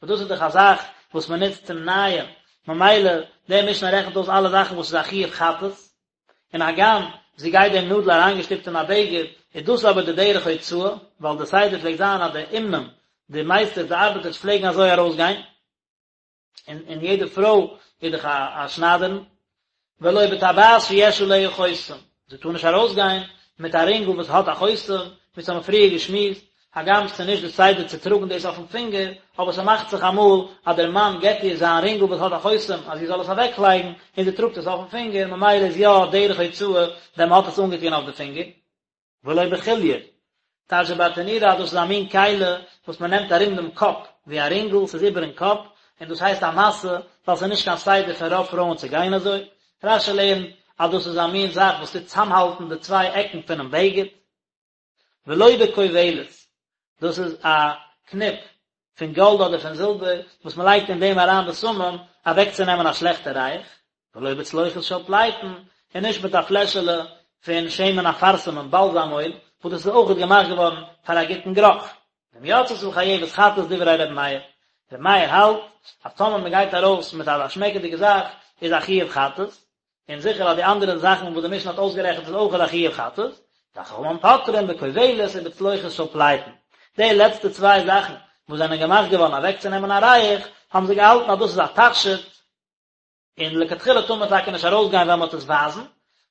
וואס דאס איז דאך א זאך וואס מען נוצט צום נייען, ממילא די משנה רעכנט אויס אלע זאכן וואס איז א חיוב חטאת, און הגם זי גייט דעם נאדל אריינגעשטופט אין א בגד, איז דאס אבער די דרך הוצאה, ווייל די סדר פלעגט זיין אז די אומנים, די מייסטערס, די ארבעטערס פלעגן אזוי ארויסגיין, און און יעדע פרוי איז דאך א א שניידערין, ולא בטבעת שיש עליה חותם, זי טאר נישט ארויסגיין מיט א רינגל וואס האט א חותם, ווי ס'האמיר פריער געשמועסט, הגם ס'איז נישט די סדר צו טראגן דאס אויפן פינגער, אבער ס'מאכט זיך אמאל אז דער מאן געבט איר זיין רינגל וואס האט א חותם אז זי זאל עס אוועקלייגן, און זי טראגט עס אויפן פינגער, ממילא איז יא דרך הוצאה ווען מ'האט עס אנגעטון אויף די פינגער. ולא בחוליא, טייטשט דער ברטנורא אז דאס איז א מין כלי וואס מ'נעמט ארום דעם קאפ ווי א רינגל, ס'איז איבערן קאפ, און דאס הייסט א משא, ווייל ס'איז נישט קיין סדר פון רוב פרויען צו גיין אזוי. רש"י לערנט אז דאס איז א מין זאך וואס טוט צאמהאלטן די צוויי עקן פונעם בגד. ולא בכובלת, דאס איז א קניפ פון גאלד אדער פון זילבער וואס מען לייגט אין דעם אריין בשמים אוועקצונעמען א שלעכטע ריח, ולא בצלוחית של פלייטון, און נישט מיט א פלעשעלע פון שמן אפרסמון באלזאם אויל, וואס דאס איז אויכעט געמאכט געווארן פאר א גוטן גערוך. ואם יצתה חייבת חטאת דברי ר' מאיר, ר' מאיר האלט אז טאמער מען גייט ארויס מיט אזא שמעקעדיגע זאך איז א חיוב חטאת, און זיכער אז די אנדערע זאכן וואס די משנה האט אויסגערעכנט איז אויכעט א חיוב חטאת, וחכמים פוטרין בכובלת ובצלוחית של פלייטון. די לעצטע צוויי זאכן וואס זענען געמאכט געווארן אוועקצונעמען א ריח, האבן זיי געהאלטן אז דאס איז א תכשיט, און לכתחילה טאר מען טאקע נישט ארויסגיין ווען מען וועט עס ווייזן,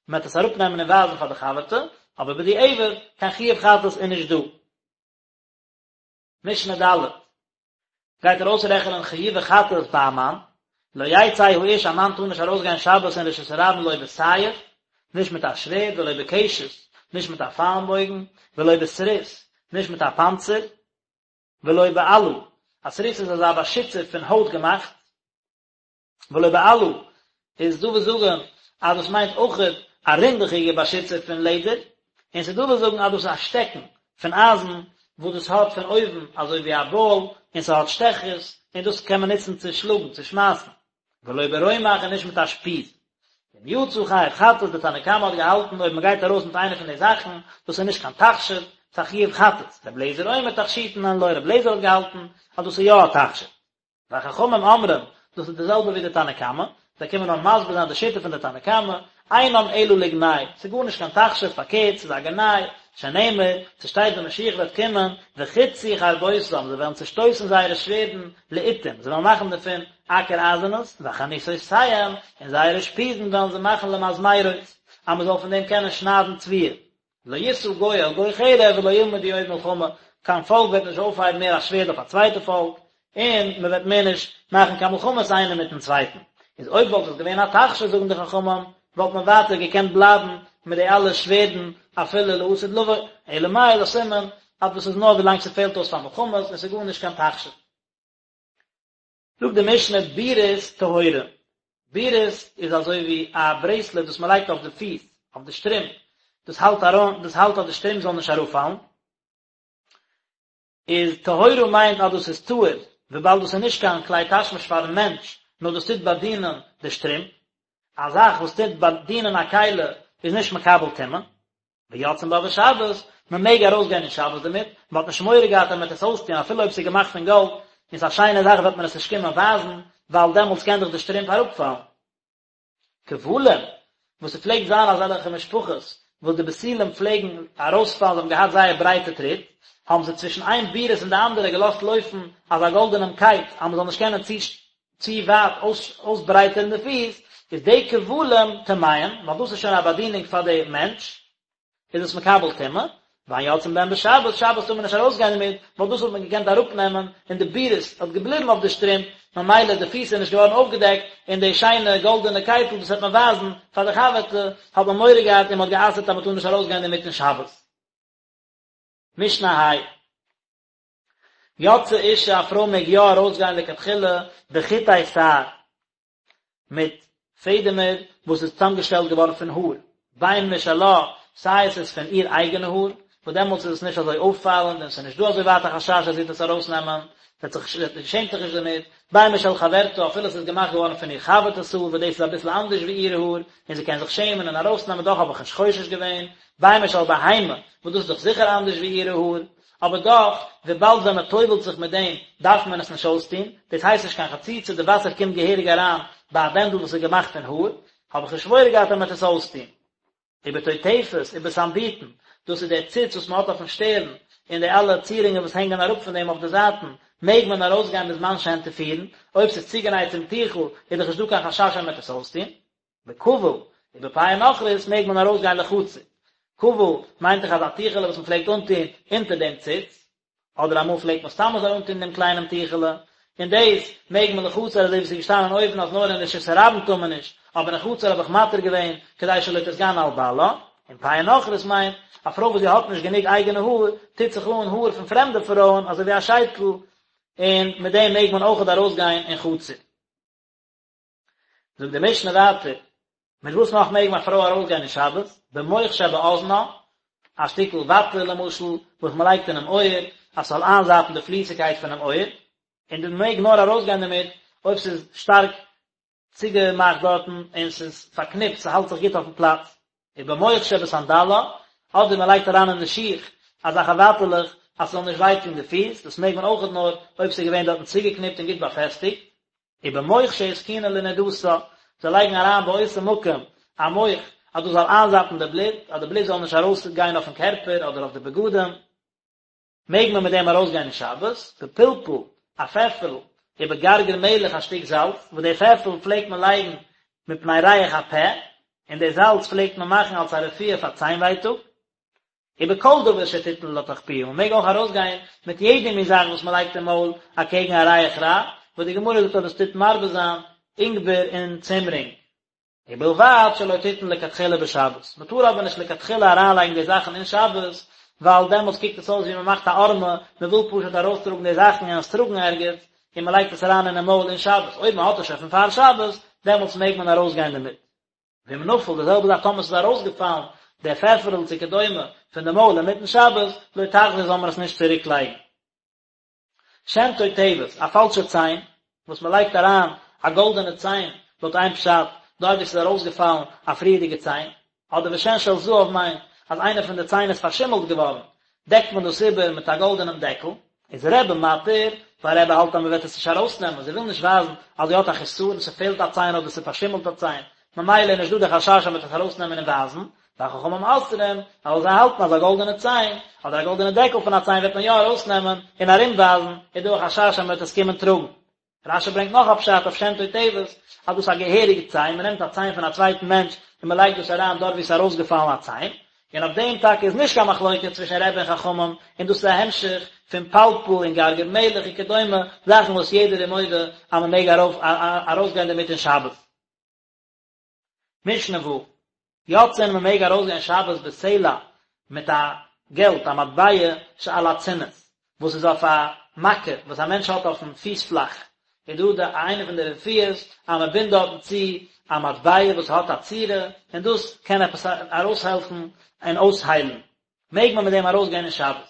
מען וועט עס אראפנעמען און ווייזן פאר די חבר'טע, אבער בדיעבד, קיין חיוב חטאת איז נישט דא. משנה ד' גייט ער אויסרעכענען חיובי חטאת ביי א מאן, לא יצא האיש א מאן טאר נישט ארויסגיין שבת אין רשות הרבים לא בסייף, נישט מיט א שווערד, ולא בקשת, נישט מיט א פיילנבויגן, ולא בסריס, נישט מיט א פאנצער, ולא באלה, א סריס איז אזא באשיצער פון הויט געמאכט, ולא באלה איז דא וואס זאגן אז דאס מיינט אויכעט א רינדעכיגע באשיצער פון לעדער, און ס'איז דא וואס זאגן אז דאס איז א שטעקן פון אייזן וואס דאס האט פון אויבן אזוי ווי א באל און ס'האט שטעכערס און דאס קען מען נוצן צו שלאגן צו שמייסן, ולא ברומח און נישט מיט א שפיז. ואם יצא חייב חטאת, די תנא קמא האט געהאלטן אויב מ'גייט ארויס מיט איינע פון די זאכן, דאס איז נישט קיין תכשיט, ס'איז א חיוב חטאת, רבי אליעזר אומר תכשיטין הן לו, רבי אליעזר האט געהאלטן אז דאס איז יא א תכשיט. וחכמים אומרים, דאס איז די זעלבע ווי די תנא קמא, זיי קומען נאר מסביר זיין די שיטה פון די תנא קמא, אינם אלא לגנאי, ס'איז גארנישט קיין תכשיט, פארקערט, ס'איז א גנאי, שנאמר, ס'שטייט ווען משיח וועט קומען, וחתתו חרבותם, זיי וועלן צושטויסן זייערע שווערדן לאתים, זיי וועלן מאכן דערפון אקער אייזענעס, וחניתותיהם, און זייערע שפיזן וועלן זיי מאכן למזמרות, אז מ'זאל פון דעם קענען שניידן תבואה. לא ישא גוי אל גוי חרב ולא ילמדו עוד מלחמה, קיין פאלק וועט נישט אויפהייבן מער א שווערד אויף א צווייטע פאלק, און מען וועט מער נישט מאכן קיין מלחמות איינער מיטן צווייטן. איז אויב וואלט עס געווען א תכשיט זאגן די חכמים, וואלט מען ווייטער געקענט בלייבן מיט די אלע שווערדן אפילו לעתיד לבוא, אלא מאי איז א סימן אז דאס איז נאר ווילאנג ס'פעלט אויס פאר מלחמות און ס'איז גארנישט קיין תכשיט. זאגט די משנה בירית טהורה, בירית איז אזוי ווי א ברעיסלעט וואס מען לייגט אויף די פיס, אויף די שטרימפ, דאס האלט אריין, דאס האלט אז די שטרימפ זאל נישט אראפפאלן, איז טהורה מיינט אז דאס איז טהור, וויבאלד דאס איז נישט קיין כלי תשמיש פארן מענטש, נאר דאס טוט באדינען די שטרימפ, א זאך וואס טוט באדינען א כלי איז נישט מקבל טומאה. ויוצאין בה בשבת, מען מעג ארויסגיין אין שבת דערמיט, מען האט נישט מורא געהאט אז מען וועט עס אויסטון אפילו אויב עס איז געמאכט פון גאלד און ס'איז א שיינע זאך וועט מען עס נישט קומען ווייזן, ווייל דעמאלטס קען דאך די שטרימפ אראפפאלן. כבלים, וואס ס'פלעגט זיין אזעלכע משפחות וואס די בתולים פלעגן ארויספאלן, זיי האבן געהאט זייער ברייטע טריט, האבן זיי צווישן איין בירית און די אנדערע געלאזט לויפן אזא גאלדענעם קייט אז מען זאל נישט קענען צו צו ווייט אויסברייטערן די פיס, איז די כבלים טמאים, ווייל דאס איז שוין א באדינונג פאר די מענטש, איז עס מקבל טומאה, ואין יוצאין בהן בשבת, שבת טאר מען נישט ארויסגיין דערמיט, ווייל דאס וואלט מען געקענט אראפנעמען, און די בירית האט געבליבן אויף די שטרימפ, ממילא די פיס איז נישט געווארן אויפגעדעקט, און די שיינע גאלדענע קייטל וואס וועט מען ווייזן פאר די חבר'טע, האט מען מורא געהאט און מען האט גע'אסר'ט אז מען טאר נישט ארויסגיין דערמיט אין שבת. משנה ה'. יוצאה אישה א פרוי מעג יא ארויסגיין לכתחילה בחוטי שער מיט פעדעמער וואס איז צוזאמגעשטעלט געווארן פון האר, בין משלה, סיי עס איז פון איר אייגענע האר, וואס דעמאלטס איז עס נישט אזוי אויפפאלענד און עס איז נישט דא אזוי ווייט א חשש אז זי וועט עס ארויסנעמען, זי שעמט זיך נישט דערמיט, בין משל חברתה, אפילו עס איז געמאכט געווארן פון איר חבר'טעס האר, וואס דאס איז אביסל אנדערש ווי איר האר, און זי קען זיך שעמען און ארויסנעמען, דאך האב איך נישט חושש געווען, בין משל בהמה, וואס דאס איז דאך זיכער אנדערש ווי אירע האר, אבער דאך, וויבאלד ווען מען טובל'ט זיך מיט דעם דארף מען עס נישט אויסטון, דאס הייסט נישט קיין חציצה, די וואסער קומט געהעריג אריין ביי א בענדל וואס איז געמאכט פון האר, האב איך נישט מורא געהאט אז מען וועט עס אויסטון. ובטוטפת, ובסנבוטין, דאס איז דער ציץ וואס מען האט אויפן שטערן, און די אלע צירונגען וואס הענגען אראפ פון דעם אויף די זייטן, מעג מען ארויסגיין בזמן שהן תפורין, אויב ס'איז צוגענייט צום טיכל, איז דאך נישט דא קיין חשש אז מען וועט עס אויסטון. בכבול, ובפאה נכרית מעג מען ארויסגיין לחצר. כבול מיינט דאך אזא טיכעלע וואס מען פלעגט אנטון אונטער דעם ציץ, אדער אמאל פלעגט מען סתם אזוי אנטון דעם קליינעם טיכעלע, און דאס מעג מען לחצר אזוי ווי עס איז געשטאנען אויבן אז נאר אין רשות הרבים טאר מען נישט, אבער אין חצר האב איך מתיר געווען כדי שלא תתגנה על בעלה. און פאה נכרית מיינט, א פרוי וואס זי האט נישט גענוג אייגענע האר, טוט זיך אן האר פון פרעמדע פרויען אזוי ווי א שייטל, און מיט דעם מעג מען אויכעט ארויסגיין אין חצר. זאגט די משנה ווייטער, מיט וואס נאך מעג א פרוי ארויסגיין אין שבת? במוך שבאזנה, א שטיקל וואטע למשל, וואס מען לייגט אינעם אויער, אז ס'זאל איינזאפן די פליסיגקייט פונעם אויער, און מען מעג נאר ארויסגיין דערמיט אויב ס'איז שטארק צוגעמאכט דארטן און ס'איז פארקניפט, ס'האלט זיך גוט אויפן פלאץ. ובמוך שבסנדלה, אדער מען לייגט אריין אין די שיך אזעלכע וואטעלעך אז ס'זאל נישט וויי טון די פיס, דאס מעג מען אויכעט נאר אויב ס'איז געווען דארטן צוגעקניפט און גוט באפעסטיגט. ובמוך שהתקינה לנדתה, זיי לייגן אריין באותו מקום א מוך אז דאס זאל איינזאפן די בלוט, אז די בלוט זאל נישט ארויס גיין אויפן קערפער אדער אויף די בגדים, מעג מען מיט דעם ארויס גיין אין שבת, בפלפל, א פעפערל, ובגרגר מלח א שטיק זאלץ, וואס די פעפערל פלעגט מען לייגן מפני ריח הפה, און די זאלץ פלעגט מען מאכן אלס א רפואה פאר ציין ווייטאג. ובכל דבר שתתן לתוך פיה, מען מעג אויך ארויסגיין מיט יעדע מין זאך וואס מען לייגט אין מויל אקעגן א ריח רע, וואס די גמרא זאגט אז דאס טוט מרבה זיין אינגבער און צימרינג. ובלבד שלא תתן לכתחילה בשבת, מען טאר אבער נישט לכתחילה אריינלייגן די זאכן אין שבת, ווייל דעמאלטס קוקט עס אויס ווי מען מאכט א הערמה, מען וויל פשוט ארויסטראגן די זאכן און עס טראגן ערגעץ, און מען לייגט עס אריין אינעם מויל אין שבת, אויב מען האט עס שוין פון פאר שבת, דעמאלטס מעג מען ארויסגיין דערמיט. ואם נפל, די זעלבע זאך טאמער ס'איז ארויסגעפאלן דער פעפערל צו כדומה פון די מויל אינמיטן שבת, לא תחזיר זאל מען עס נישט צוריק לייגן. שן תותבת, א פאלשע ציין, וואס מען לייגט אריין א גאלדענע ציין, לויט איין פשט, דארט ווי ס'איז ארויסגעפאלן א פריערדיגע ציין, אדער ושן של זהב מיינט אז איינע פון די ציין איז פארשימלט געווארן, דעקט מען דאס איבער מיט א גאלדענעם דעקל. איז רבי מתיר, ווייל רבי האלט אז מען וועט עס נישט ארויסנעמען, זי וויל נישט ווייזן אז זי האט א חסרון, ס'פעלט א ציין אדער ס'פארשימלט א ציין, ממילא איז נישט דא די חשש אז מען וועט עס ארויסנעמען און ווייזן, וחכמים אוסרים, ווייל זיי האלטן אז א גאלדענע ציין, אדער א גאלדענע דעקל פון א ציין וועט מען יא ארויסנעמען און ארומווייזן, איז דא א חשש אז מען וועט עס קומען טראגן. רש"י ברענגט נאך א פשט אויף שן תותבת, אז דאס איז א געהעריגע ציין, מען נעמט א ציין פון א צווייטן מענטש און מען לייגט דאס אריין דארט וואו עס איז ארויסגעפאלן א ציין, און אויף דעם טאקע איז נישט קיין מחלוקת צווישן רבי און חכמים, און דאס איז א המשך פון פלפל און גרגר מלח וכדומה, זאכן וואס יעדער איז מודה אז מען מעג ארויסגיין דערמיט אין שבת. משנה ו'. יוצאין מען מעג ארויסגיין שבת בסלע מיט א געלט א מטבע שעל הצינית וואס איז אויף א מכה וואס א מענטש האט אויפן פיס פלאך איז דא די איינע פון די רפואות אז מען בינדט דארטן צו א מטבע וואס האט א צורה און דאס קען עפעס ארויסהעלפן און אויסהיילן מעג מען מיט דעם ארויסגיין אין שבת.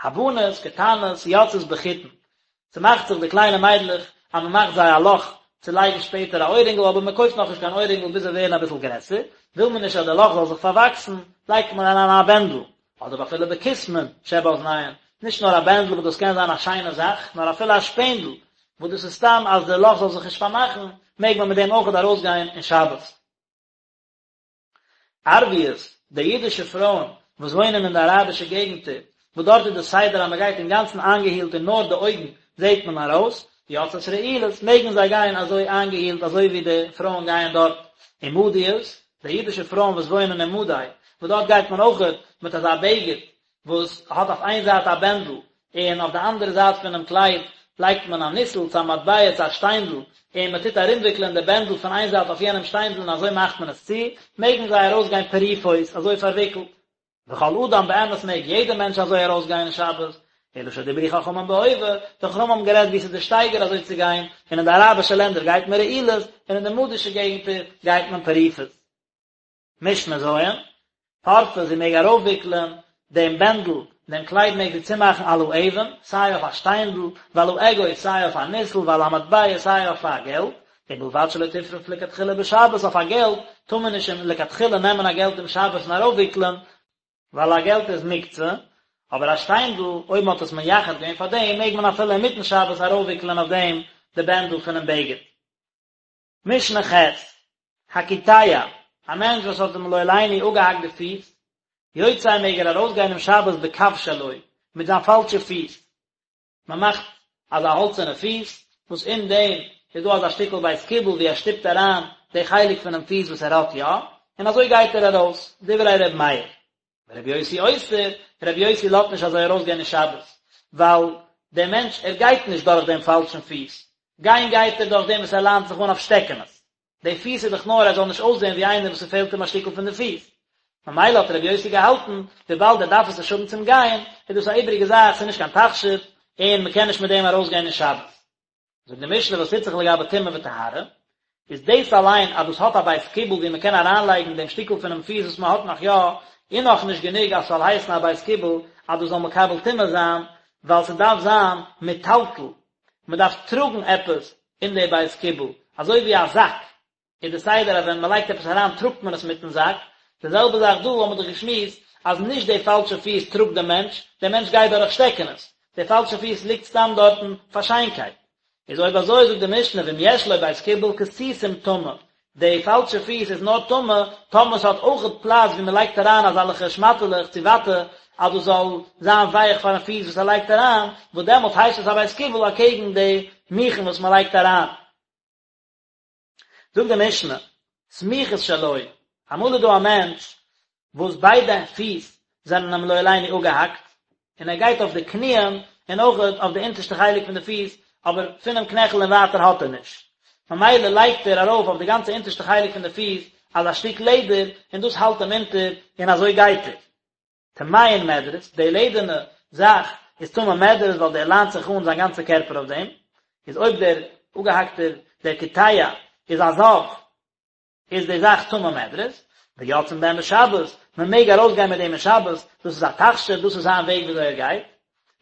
הבנות קטנות יוצאות בחוטין, ס'מאכט זיך די קליינע מיידלעך אז מ'מאכט זיי א לאך צו לייגן שפעטער א אוירינגל אבער מ'קויפט נאכנישט קיין אוירינגל ביז זיי ווערן אביסל גרעסער, וויל מען נישט אז די לאך זאל זיך פארוואקסן, לייגט מען אריין א בענדל, אדער אפילו בקיסמין שבאזניהן, נישט נאר א בענדל וואס דאס קען זיין א שיינע זאך, נאר אפילו א שפענדל, וואס דאס איז סתם אז די לאך זאל זיך נישט פארמאכן, מעג מען מיט דעם אויכעט ארויסגיין אין שבת. ערביות, די אידישע פרויען וואס וואוינען אין די אראבישע געגנטער, וואס דארט איז די סדר אז מען גייט אינגאנצן איינגעהילט און נאר די אויגן זעט מען ארויס, יוצאות רעולות, מעגן זיי גיין אזוי איינגעהילט אזוי ווי די פרויען גייען דארט. ומדיות, די אידישע פרויען וואס וואוינען אין מדי, וואס דארט גייט מען אויכעט מיט אזא בגד וואס האט אויף איין זייט א בענדל און אויף די אנדערע זייט פונעם קלייד לייגט מען א ניסל צו א מטבע צו א שטיינדל, און מען טוט ארומוויקלען די בענדל פון איין זייט אויף יענעם שטיינדל און אזוי מאכט מען עס צו, מעגן זיי ארויסגיין פרופות, אזוי פארוויקלט. וכל אדם באמת מעג יעדער מענטש אזוי ארויסגיין אין שבת, אלא שדברו חכמים בהווה, די חכמים האבן גערעדט ווי ס'איז די שטייגער אזוי צו גיין, און אין די אראבישע לענדער גייט מען רעולות, און אין די מדישע געגנטער גייט מען פרופות. משנה ז', פורפה זי מעג ארויפוויקלען דעם בענדל, דעם קלייד מעג זי צומאכן על האבן, סיי אויף א שטיינדל, ועל האגוז, סיי אויף א ניסל, ועל המטבע, סיי אויף א געלט, ובלבד שלא תפרוף לכתחילה בשבת, אויף א געלט טאר מען נישט לכתחילה נעמען א געלט אום שבת און ארויפוויקלען, ווייל א געלט איז מוקצה, אבער א שטיינדל, אויב מען האט עס מייחד געווען פאר דעם, מעג מען אפילו אינמיטן שבת ארויפוויקלען אויף דעם די בענדל פונעם בגד. משנה ח', הקיטע, א מענטש וואס האט אים לא עלינו אפגעהאקט די פיס, יוצא מעג ער ארויסגיין אום שבת בקב שלו, מיט זיין פאלשע פיס. מען מאכט אזא האלצערנע פיס, וואס אין דעם איז דא אזא שטיקל בית קיבול ווי ער שטופט אריין די חלק פונעם פיס וואס ער האט יא, און אזוי גייט ער ארויס, דברי ר' מאיר. ורבי יוסי אוסר, רבי יוסי לאזט נישט אזוי ארויסגיין אין שבת, ווייל דער מענטש ער גייט נישט דורך דעם פאלשן פיס, גיין גייט ער דורך דעם וואס ער ליינט זיך אן אויף שטעקענעס, די פיס איז דאך נאר ער זאל נישט אויסזען ווי איינער וואס ס'פעלט אים א שטיקל פון די פיס, ממילא האט רבי יוסי געהאלטן, וויבאלד ער דארף עס נישט האבן צום גיין, איז דאס א איבעריגע זאך, ס'איז נישט קיין תכשיט, און מ'קען נישט מיט דעם ארויסגיין אין שבת. זאגט די משנה וואס טוט זיך לגבי טומאה וטהרה, איז דאס אליין אז דאס האט א בית קיבול ווי מען קען אריינלייגן דעם שטיקל פונעם פיס וואס מען האט נאך יא, איז נאך נישט גענוג אז ס'זאל הייסן א בית קיבול אז דאס זאל מקבל טומאה זיין, ווייל ס'דארף זיין מיטלטל, מען דארף טראגן עפעס אין די בית קיבול, אזוי ווי א זאק, איז די סדר אז ווען מען לייגט עפעס אריין טראגט מען עס מיטן זאק, די זעלבע זאך דא האבן מיר דאך געשמועסט אז נישט די פאלשע פיס טראגט די מענטש, דער מענטש גייט דורך שטעקענעס, די פאלשע פיס ליגט סתם דארטן פאר שיינקייט. איז אויב אזוי זאגט די משנה ואם יש לו בית קיבול כתיתים טמא, די פאלשע פיס איז נאר טמא טאמער ס'האט אויכעט פלאץ ווי מען לייגט אריין אזאלעכע שמאטעלעך צו וואטע אז דאס זאל זיין ווייך פארן פיס וואס ער לייגט אריין, וואס דעמאלט הייסט עס א בית קיבול אקעגן די מוכין וואס מען לייגט אריין. זאגט די משנה, סמוכות שלו, אמאל איז דא א מענטש וואס ביידע פיס זענען אים לא עלינו אפגעהאקט, און ער גייט אויף די קניען און אויך אויף די אונטערשטע חלק פון די פיס, אבער פונעם קנעכל און ווייטער האט ער נישט, ממילא לייגט ער ארויף אויף די גאנצע אונטערשטע חלק פון די פיס אזא שטיק לעדער, און דאס האלט אים אונטער, און אזוי גייט ער. טמאין מדרס, די לעדערנע זאך איז טמא מדרס ווייל דער ליינט זיך אן זיין גאנצע קערפער אויף דעם, איז אויב דער אפגעהאקטער דער קיטע איז א זב איז די זאך טמא מדרס, ויוצאין בהן בשבת, מען מעג ארויסגיין מיט דעם אין שבת, דאס איז א תכשיט, דאס איז זיין וועג וויאזוי ער גייט.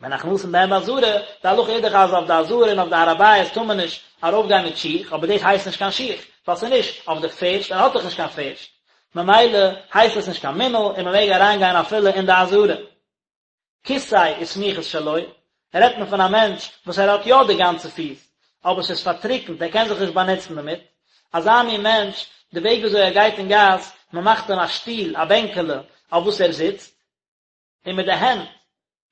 ונכנסין בהן בעזרה, די הלכה איז דאך אז אויף די עזרה און אויף די הר הבית טאר מען נישט ארויפגיין מיט שיך, אבער דאס הייסט נישט קיין שיך, ווייל ס'איז נישט אויף די פערשט, ער האט דאך נישט קיין פערשט, ממילא הייסט עס נישט קיין מנעל און מען מעג אריינגיין אפילו אין די עזרה. כיסא וסמוכות שלו, רעדט מען פון א מענטש וואס ער האט יא די גאנצע פיס, אבער ס'איז פארטריקנט, ער קען זיך נישט באנוצן דערמיט, אזא מין מענטש, די וועג וויאזוי ער גייט אין גאס, מען מאכט אים א שטול, א בענקעלע, אויף וואס ער זיצט, און מיט די הענט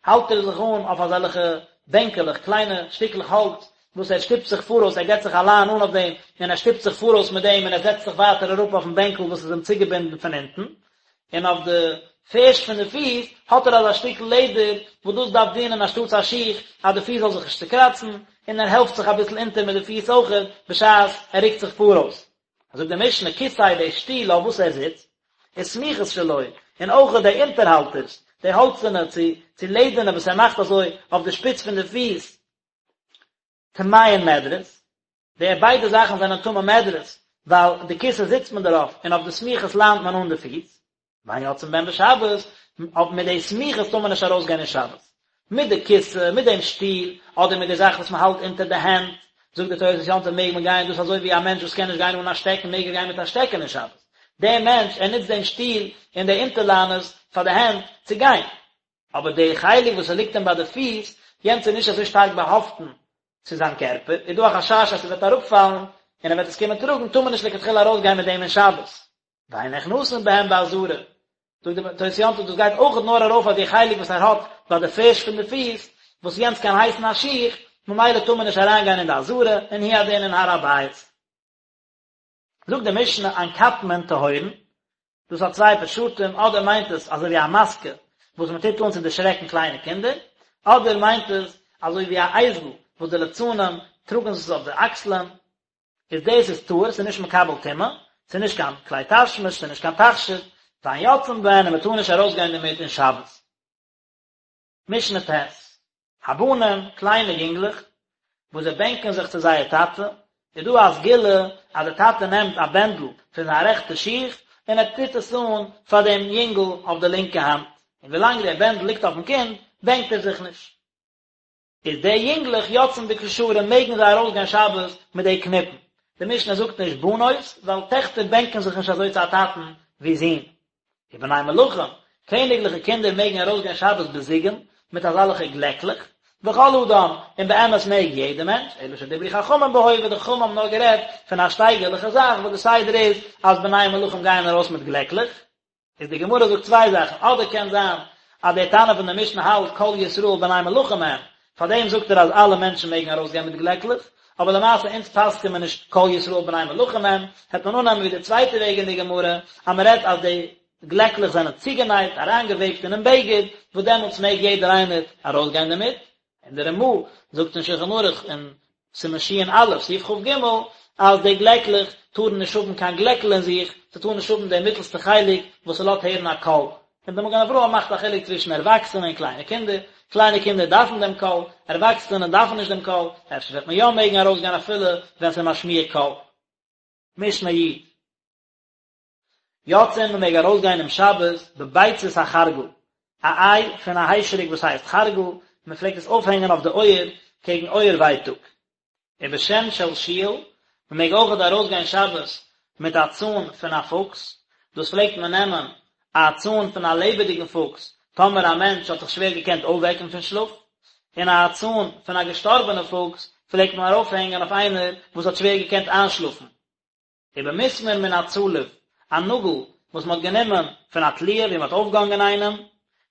האלט ער זיך אן אויף אזעלכע בענקעלעך, קליינע שטיקלעך האלץ, וואס ער שטופט זיך פאראויס, ער געבט זיך א ליין אן אויף דעם, און ער שטופט זיך פאראויס מיט דעם, און ער זעצט זיך ווייטער אראפ אויפן בענקל וואס איז אים צוגעבינדן פון אונטן, און אויף די פערשט פון די פיס האט ער אזא שטיקל לעדער, וואס דאס דארף דינען אנשטאטס א שיך, אז די פיס זאל זיך נישט צוקראצן, און ער העלפט זיך אביסל אונטער מיט די פיס אויכעט, בשעת ער רוקט זיך פאראויס. זאגט די משנה, כסא די שטול אויף וואס ער זיצט. וסמיכות שלו, און אויך די אונטערהאלטערס, די האלצערנע צו צו לעדערנע וואס ער מאכט אזוי אויף די שפיץ פון די פיס, טמאין מדרס, די ביידע זאכן זענען טמא מדרס, ווייל די כסא זיצט מען דערויף און אויף די סמיכות ליינט מען אן די פיס, ואין יוצאין בהן בשבת, אויף מיט די סמיכות טאר מען נישט ארויסגיין אין שבת. מיט די כסא, מיט דעם שטול, אדער מיט די זאך וואס מען האלט אונטער די הענט, זאגט די תוס' יום טוב מעג מען גיין, דאס אזוי ווי א מענטש וואס קען נישט גיין אן א שטעקן מעג ער גיין מיט א שטעקן אין שבת. דער מענטש, ער נוצט דעם שטול און די אונטערליינערס פאר די הענט צו גיין. אבער די חלק וואס ס'ליגט אים ביי די פיס, יענץ איז נישט אזוי שטארק באהאפטן צו זיין קערפער, איז דא א חשש אז ס'וועט אראפפאלן און ער וועט עס קומען טראגן, טאר מען נישט לכתחילה ארויסגיין מיט דעם אין שבת. ואין נכנסין בהם בעזרה, זאגט די תוס' יום טוב דאס גייט אויכעט נאר ארויף אויף די חלק וואס ער האט ביי די פערשט פון די פיס, וואס יענץ קען הייסן א שיך, ממילא טאר מען נישט אריינגיין אין די עזרה, און הוא הדין אין הר הבית. זאגט די משנה אנקטמין טהורין, דאס האט צוויי פשטים, אדער מיינט עס אזוי ווי א מאסקע וואס מען טוט אן צו דערשרעקן קליינע קינדער, אדער מיינט עס אזוי ווי א אייזל וואס די ליצנים טראגן עס אויף די אקסלען, איז דאס איז טהור, ס'איז נישט מקבל טומאה, ס'איז נישט קיין כלי תשמיש, ס'איז נישט קיין תכשיט, ואין יוצאין בהן און מען טאר נישט ארויסגיין דערמיט אין שבת. משנה ט', הבנים, קליינע יונגלעך, וואס זיי בענקען זיך צו זייער טאטע, איז דא א סגולה אז דער טאטע נעמט א בענדל פון זיין רעכטע שיך און ער טוט עס אן פאר דעם יונגל אויף די לינקע האנט, און ווילאנג דער בענדל ליגט אויפן קינד, בענקט ער זיך נישט. איז די יונגלעך יוצאין בקשרים מעגן זיי ארויסגיין שבת מיט די קניפן, די משנה זאגט נישט בנות ווייל טעכטער בענקען זיך נישט אזוי צו א טאטן ווי זין. ובני מלכים, קעניגליכע קינדער מעגן ארויסגיין שבת בזיגין מיט אזאלעכע גלעקלעך, וכל אדם, און באמת מעג יעדער מענטש, אלא שדברו חכמים בהווה, די חכמים האבן נאר גערעדט פון א שטייגערליכע זאך וואס די סדר איז אז בני מלכים גייען ארויס מיט גלעקלעך, איז די גמרא זאגט צוויי זאכן, אדער קען זיין אז דער תנא פון די משנה האלט כל ישראל בני מלכים הם, פארדעם זאגט ער אז אלע מענטשן מעגן ארויסגיין מיט גלעקלעך, אבער למעשה אונז פסק'ען מיר נישט כל ישראל בני מלכים הם, העט מען אננעמען ווי די צווייטע וועג אין די גמרא, אז מען רעדט אז די גלעקלעך זענען צוגענייט, אריינגעוועבט אינעם בגד, וואס דעמאלטס מעג יעדער איינער ארויסגיין דערמיט, און די רמ"א זאגט אין שולחן ערוך אין סימן ש"א, סעיף כ"ג, אז די גלעקלעך טארן נישט האבן קיין גלעקל אין זיך, ס'טאר נישט האבן די מיטלסטע חלק וואס ס'לאזט הערן א קול. און די מגן אברהם מאכט א חילוק צווישן ערוואקסענע און קליינע קינדער, קליינע קינדער דארפן דעם קול, ערוואקסענע דארפן נישט דעם קול, אפשר וועט מען יא מעגן ארויסגיין אפילו ווען ס'איז משמיע קול. משנה י. יוצאין מען מעג ארויסגיין אום שבת בביצת החרגל, א איי פון א היישעריק וואס הייסט חרגל, מען פלעגט עס אויפהענגען אויף די אויער קעגן אויער ווייטאג. ובשן של שועל, מען מעג אויכעט ארויסגיין שבת מיט א צאן פון א פוקס, דאס פלעגט מען נעמען א צאן פון א לעבעדיגן פוקס טאמער א מענטש האט זיך שווער געקענט אויפוועקן פון שלאף, און א צאן פון א געשטארבענע פוקס פלעגט מען ארויפהענגען אויף איינער וואס האט שווער געקענט איינשלאפן. ובמסמר מן הצלוב, א נאגל וואס מען האט גענומען פון א תליה ווי מען האט אויפגעהאנגען איינעם,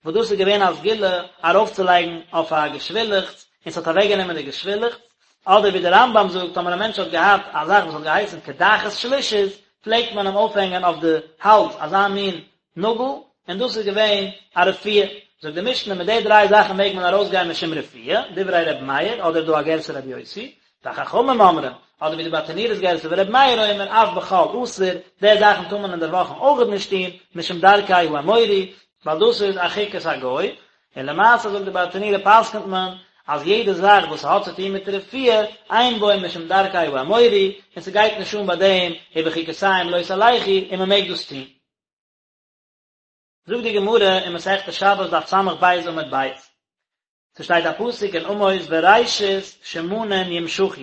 וואס דאס איז געווען א סגולה ארויפצולייגן אויף א געשווילעכץ און ס'האט אוועקגענומען די געשווילעכץ, אדער ווי דער רמב"ם זאגט טאמער א מענטש האט געהאט א זאך וואס האט געהייסן קדחת שלישית פלעגט מען אים אויפהענגען אויף די האלז אזא מין נאגל, און דאס איז געווען א רפואה. זאגט די משנה, מיט די דריי זאכן מעג מען ארויסגיין משום רפואה, דברי ר' מאיר, אדער דא א גירסא ר' יוסי, וחכמים אומרים, אדער ווי די ברטנורא'ס גירסא ור' מאיר אומר, אף בחול אסור, די זאכן טאר מען אין דער וואכן אויכעט נישט טון, משום דרכי האמורי, ווייל דאס איז א חוקת הגוי, און למעשה זאגט די ברטנורא פסק'נט מען אז יעדע זאך וואס ס'האט צו טון מיט רפואה, אין בו משום דרכי האמורי, און ס'גייט נישט אן ביי דעם ובחוקותיהם לא תלכו, און מ'מעג דאס טון. זאגט די גמרא אין מסכת שבת דף ס"ב עמוד ב', ס'שטייט א פסוק אין עמוס וראשית שמנים ימשחו,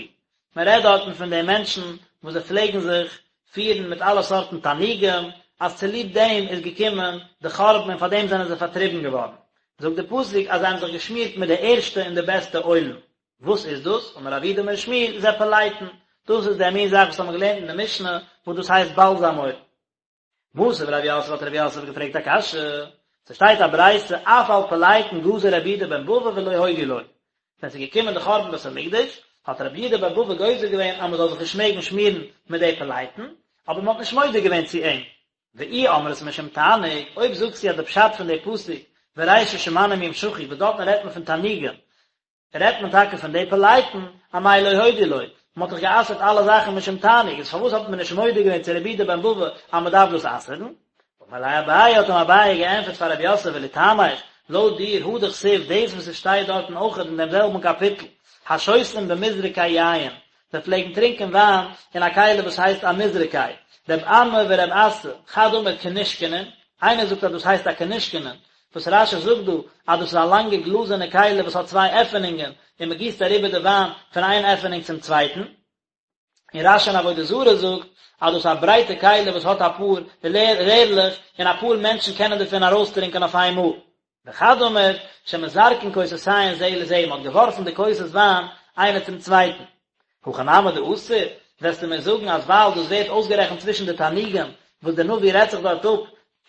מען רעדט דארטן פון די מענטשן וואס זיי פלעגן זיך פירן מיט אלע סארטן תענוגים, אז צוליב דעם איז געקומען די חורבן און פאר דעם זענען זיי פארטריבן געווארן, זאגט די פסוק אז זיי האבן זיך געשמירט מיט די ערשטע און די בעסטע אוילן, וואס איז דאס? אמר רב יהודה אמר שמואל, זה פלייטון, דאס איז דער מין זאך וואס האבן מיר געלערנט אין די משנה, וואס דאס הייסט באלזאם אויל. מתיב רב יוסף האט רב יוסף געפרעגט א קשיא, ס'שטייט א ברייתא אף על פלייטון גזר רבי יהודה בן בבא ולא הודו לו, ווען ס'איז געקומען די חורבן בית המקדש, האט רבי יהודה בן בבא גוזר געווען אז מ'זאל זיך נישט מעגן שמירן מיט די פלייטון, אבער מ'האט נישט מודה געווען צו אים. ואי אמרת משום תענוג, אויב זאגסטו אז די פשט פון די פסוק וראשית שמנים ימשחו וואס דארטן רעדט מען פון תענוגים, רעדט מען טאקע פון די פלייטון, אמאי לא הודו לו, מען האט דאך גע'אסר'ט אלע זאכן משום תענוג, איז פארוואס האט מען נישט מודה געווען צו רבי יהודה בן בבא אז מען דארף דאס אסר'ן? אמר ליה אביי האט אים אביי געענטפערט פאר רב יוסף ולטעמיך, לויט דיר הא דכתיב דאס וואס עס שטייט דארטן אויכעט אין דעם זעלבן קאפיטל, השותים במזרקי יין, זיי פלעגן טרינקען וויין אין א כלי וואס הייסט א מזרקי, רב אמי ורב אסי, חד אמר כנישקנין, איינער זאגט אז דאס הייסט א כנישקנין, וואס רש"י זאגט דא אז דאס איז א לאנגע גלאזערנע כלי וואס האט צוויי עפענונגען און מען גיסט אריבער די וויין פון איין עפענונג צום צווייטן. און רש"י אין עבודה זרה זאגט אז דאס איז א ברייטע כלי וואס האט אפאר רערלעך און אפאר מענטשן קענען דערפון ארויסטרינקען אויף איין מאל. וחד אמר שמזרקין כוסותיהן זה לזה, מען האט געווארפן די כוסות וויין איינער צום צווייטן. הכא נמי דאסור, וועסטו מיר זאגן אז ווייל דאס ווערט אויסגערעכנט צווישן די תענוגים וואס דער נביא רעדט זיך דארט אפ,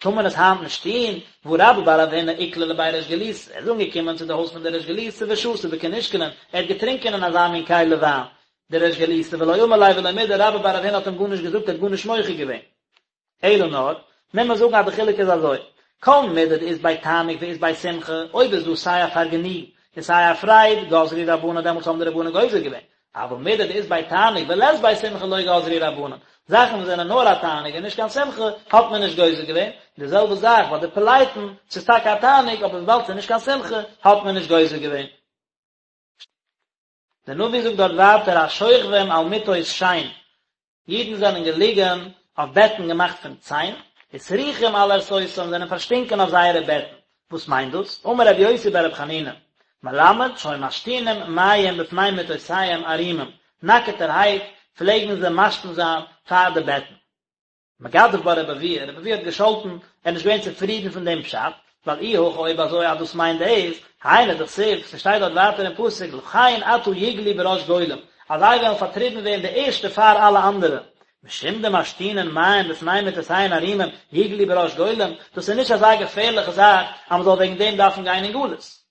טאר מען עס היינט נישט טון, והא רבה בר רב הונא איקלע לבי ריש גלותא, ער איז אנגעקומען צו די הויז פון דער ריש גלותא ושתי בכנישקנין, ער האט געטרינקען אין אזא מין כלי וויין, דער ריש גלותא ולא אמר ליה ולא מידי, רבה בר רב הונא האט אים גארנישט געזאגט, ער האט גארנישט מוחה געווען. אלא נאר, מוז מען זאגן אז די חילוק איז אזוי, כל מידי דאית ביה תענוג ואית ביה שמחה, אויב איז דא סיי א פארגעניגן און סיי א פרייד, גזרו רבנן דעמאלטס האבן די רבנן גוזר געווען, אבל מידי דאית ביה תענוג ולית ביה שמחה לא גזרו רבנן, זאכן וואס זענען נאר א תענוג און נישט קיין שמחה, האט מען נישט גוזר געווען, די זעלבע זאך ביי די פלייטון, ס'איז טאקע א תענוג אבער וויבאלד ס'איז נישט קיין שמחה, האט מען נישט גוזר געווען. דער נביא זאגט דארט ווייטער השוכבים על מטות שן, אידן זענען געליגן אויף בעטן געמאכט פון ציין, וסרוחים על ערשותם זענען פארשטינקען אויף זייערע בעטן, וואס מיינט דאס? אמר רבי יוסי ברבי חנינא, מלמד שהיו משתינים מים בפני מטותיהם ערומים, נאקעטערהייט פלעגן זיי משתין זיין פאר די בעטן. מגדף בה רבי אבהו, רבי אבהו האט געשאלטן, ער איז נישט געווען צופרידן פון דעם פשט, ווייל אי הכי אויב אזוי אז דאס מיינט דאס, היינו דכתיב, ס'שטייט דארט ווייטער אין פסוק לכן עתה יגלו בראש גולים, אז זיי וועלן פארטריבן ווערן די ערשטע פאר אלע אנדערע, משום דמשתינין מים בפני מטותיהן ערומים יגלו בראש גולים, דאס איז נישט אזא געפערליכע זאך אז מ'זאל וועגן דעם דארפן גיין אין גלות.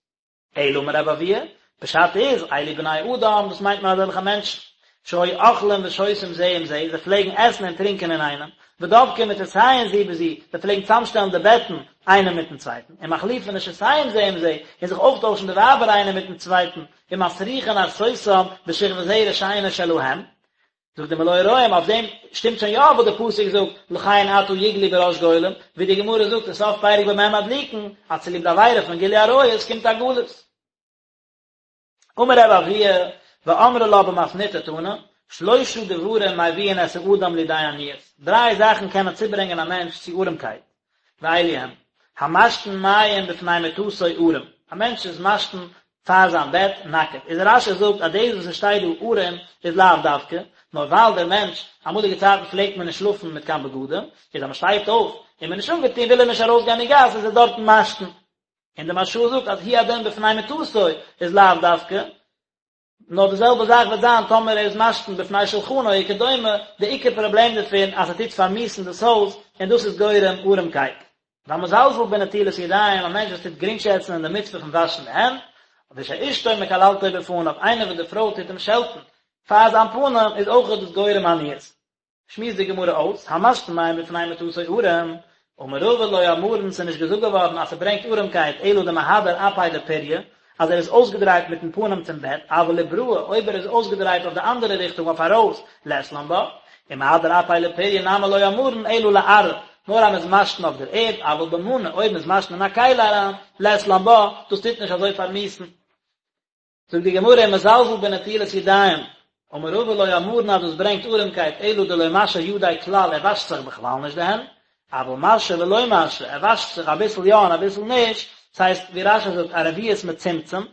אלא אמר רבי אבהו, פשט איז, אלו בני אדם, דאס מיינט מען אזעלכע מענטשן, שהיו אוכלים ושותים זה עם זה, זיי פלעגן עסן און טרינקען אינאיינעם, ודובקין מטותיהן זו בזו, זיי פלעגן צאמשטעלן די בעטן איינער מיטן צווייטן, ומחליפין נשותיהם זה עם זה, און זיך אויפטוישן די ווייבער איינער מיטן צווייטן, ומסריחין ערסותם בשכבת זרע שאינה שלהם, זאגט די מלא הרועים, אויף דעם שטימט שוין יא וואס די פסוק זאגט, לכן עתה יגלו בראש גולים, ווי די גמרא זאגט אין סוף פרק במה מדליקין, אז צוליב די עבירה פון גילוי עריות קומט א גלות. אמר רבי אבהו, ואמרי לה במתניתא תנא, שלושה דברים מביאין את האדם לידי עניות, דריי זאכן קענען צוברענגען א מענטש צו ארעמקייט, ואלו הן, המשתין מים בפני מטתו ערום, א מענטש איז משתין פאר זיין בעט נאקעט, איז רש"י זאגט אז דאס וואס עס שטייט דא ערום איז לאו דווקא, נאר ווייל דער מענטש, אמאליגע צייטן פלעגט מען נישט שלאפן מיט קיין בגדים, איז אז מען שטייט אויף און מען איז נישט אנגעטון וויל ער נישט ארויסגיין אין גאס איז ער דארטן משתין. און די מהרש"א זאגט אז הוא הדין בפני מטתו איז לאו דווקא, נאר די זעלבע זאך וועט זיין טאמער ער איז משתין בפני שלחנו וכדומה, די עיקר פראבלעם דערפון אז ס'טוט פארמיסן דאס הויז און דאס איז גורם ארעמקייט. והמזלזל בנטילת ידיים, א מענטש וואס טוט גרינגשעצן אין די מצוה פון וואשן די הענט, ושאשתו מקללתו בפניו, איינער וואס די פרוי טוט אים שעלטן פאר זיין פנים, איז אויך דאס גורם עניות. שמועסט די גמרא אויס, המשתין מים בפני מטתו ערום, אמר רבא לא אמרן ס'איז נישט געזאגט געווארן אז ס'ברענגט ארעמקייט אלא דמהדר אפיה לפוריא, אז ער איז אויסגעדרייט מיטן פנים צום בעט, אבל לבראי, אויב ער איז אויסגעדרייט אויף די אנדערע ריכטונג אויף ארויס, לית לן בה, ומהדר אפיה לפוריא נמי לא אמרן אלא לארעא, נאר אז מ'איז משתין אויף דער ערד, אבל במנא, אויב מ'איז משתין אין א כלי אריין, לית לן בה, דאס טוט נישט אזוי פארמיסן. זאגט די גמרא ומזלזל בנטילת ידיים, אמר רבא לא אמרן אז דאס ברענגט ארעמקייט אלא דלא משי ידיה כלל ער וואשט זיך בכלל נישט די הענט, אבל משי ולא משי ער וואשט זיך אביסל יא און אביסל נישט, ס'הייסט ווי רש"י זאגט א רביעית מצומצם,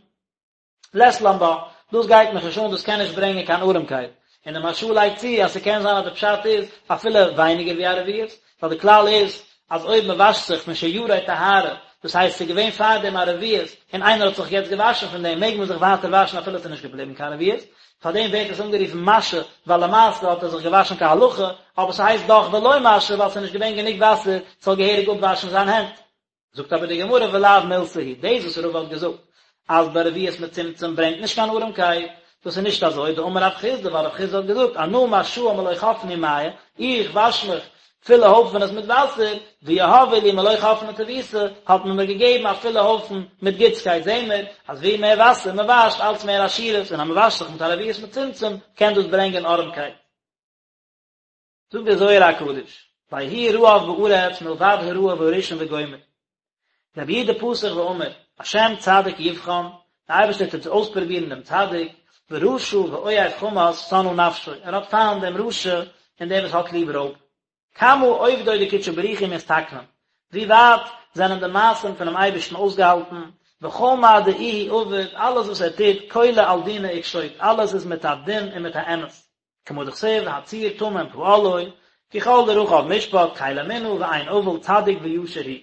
לית לן בה, דאס גייט מיך נישט אן דאס קען נישט ברענגען קיין ארעמקייט, און די מהרש"א לייגט צו אז ס'קען זיין אז די פשט איז אפילו ווייניגער ווי א רביעית, ווייל די כלל איז אז אויב מען וואשט זיך משיורי טהרה, דאס הייסט ס'איז געווען פארדעם א רביעית און איינער האט זיך יעצט געוואשן פון דעם מעג מען זיך ווייטער וואשן אפילו ס'איז נישט געבליבן קיין רביעית, פארדעם ווערט עס אנגערופן משי ווייל למעשה האט ער זיך געוואשן כהלכה, אבער ס'הייסט דאך ולא משי ווייל ס'איז נישט געווען גענוג וואסער ס'זאל געהעריג אפוואשן זיין הענט. זאגט אבער די גמרא ולאו מילתא היא, דאס וואס רבא האט געזאגט אז ברביעית מצומצם ברענגט נישט קיין ארעמקייט, דאס איז נישט אזוי, דאמר רב חסדא, ווייל רב חסדא האט געזאגט אנא משאי מלא חפני מיא, איך וואש מיך פולע הויפענעס מיט וואסער, ויהבו לי מלא חפני טיבותא, האט מען מיר געגעבן א פולע הויפן מיט גוטסקייט, זעהן מיר אז ווי מער וואסער מען וואשט אלץ מער עשירות, און אז מען וואשט זיך מיט א רביעית מצומצם קען דאס ברענגען ארעמקייט. זאגט דער זוהר הקדוש. ויהי רעב בארץ מלבד הרעב הראשון וגומר. רבי יהודה פתח ואמר, השם צדיק יבחן, דער אייבערשטער טוט אויספרובירן דעם צדיק, ורשע ואוהב חמס שנאה נפשו, ער האט פיינט דעם רשע און דער וואס האט ליב רויב. כמה עובדוי דקודשא בריך הוא מתתקנן, ווי ווייט זענען די מעשים פונעם אייבערשטן אויסגעהאלטן, וכל מה דאיהו עביד, אלעס וואס ער טוט, כולא על דינא וקשוט, אלעס איז מיט א דין און מיט א אמת. כמה דכתיב הצור תמים פעלו, כי כל דרכיו משפט, קל אמונה ואין עול צדיק וישר הוא.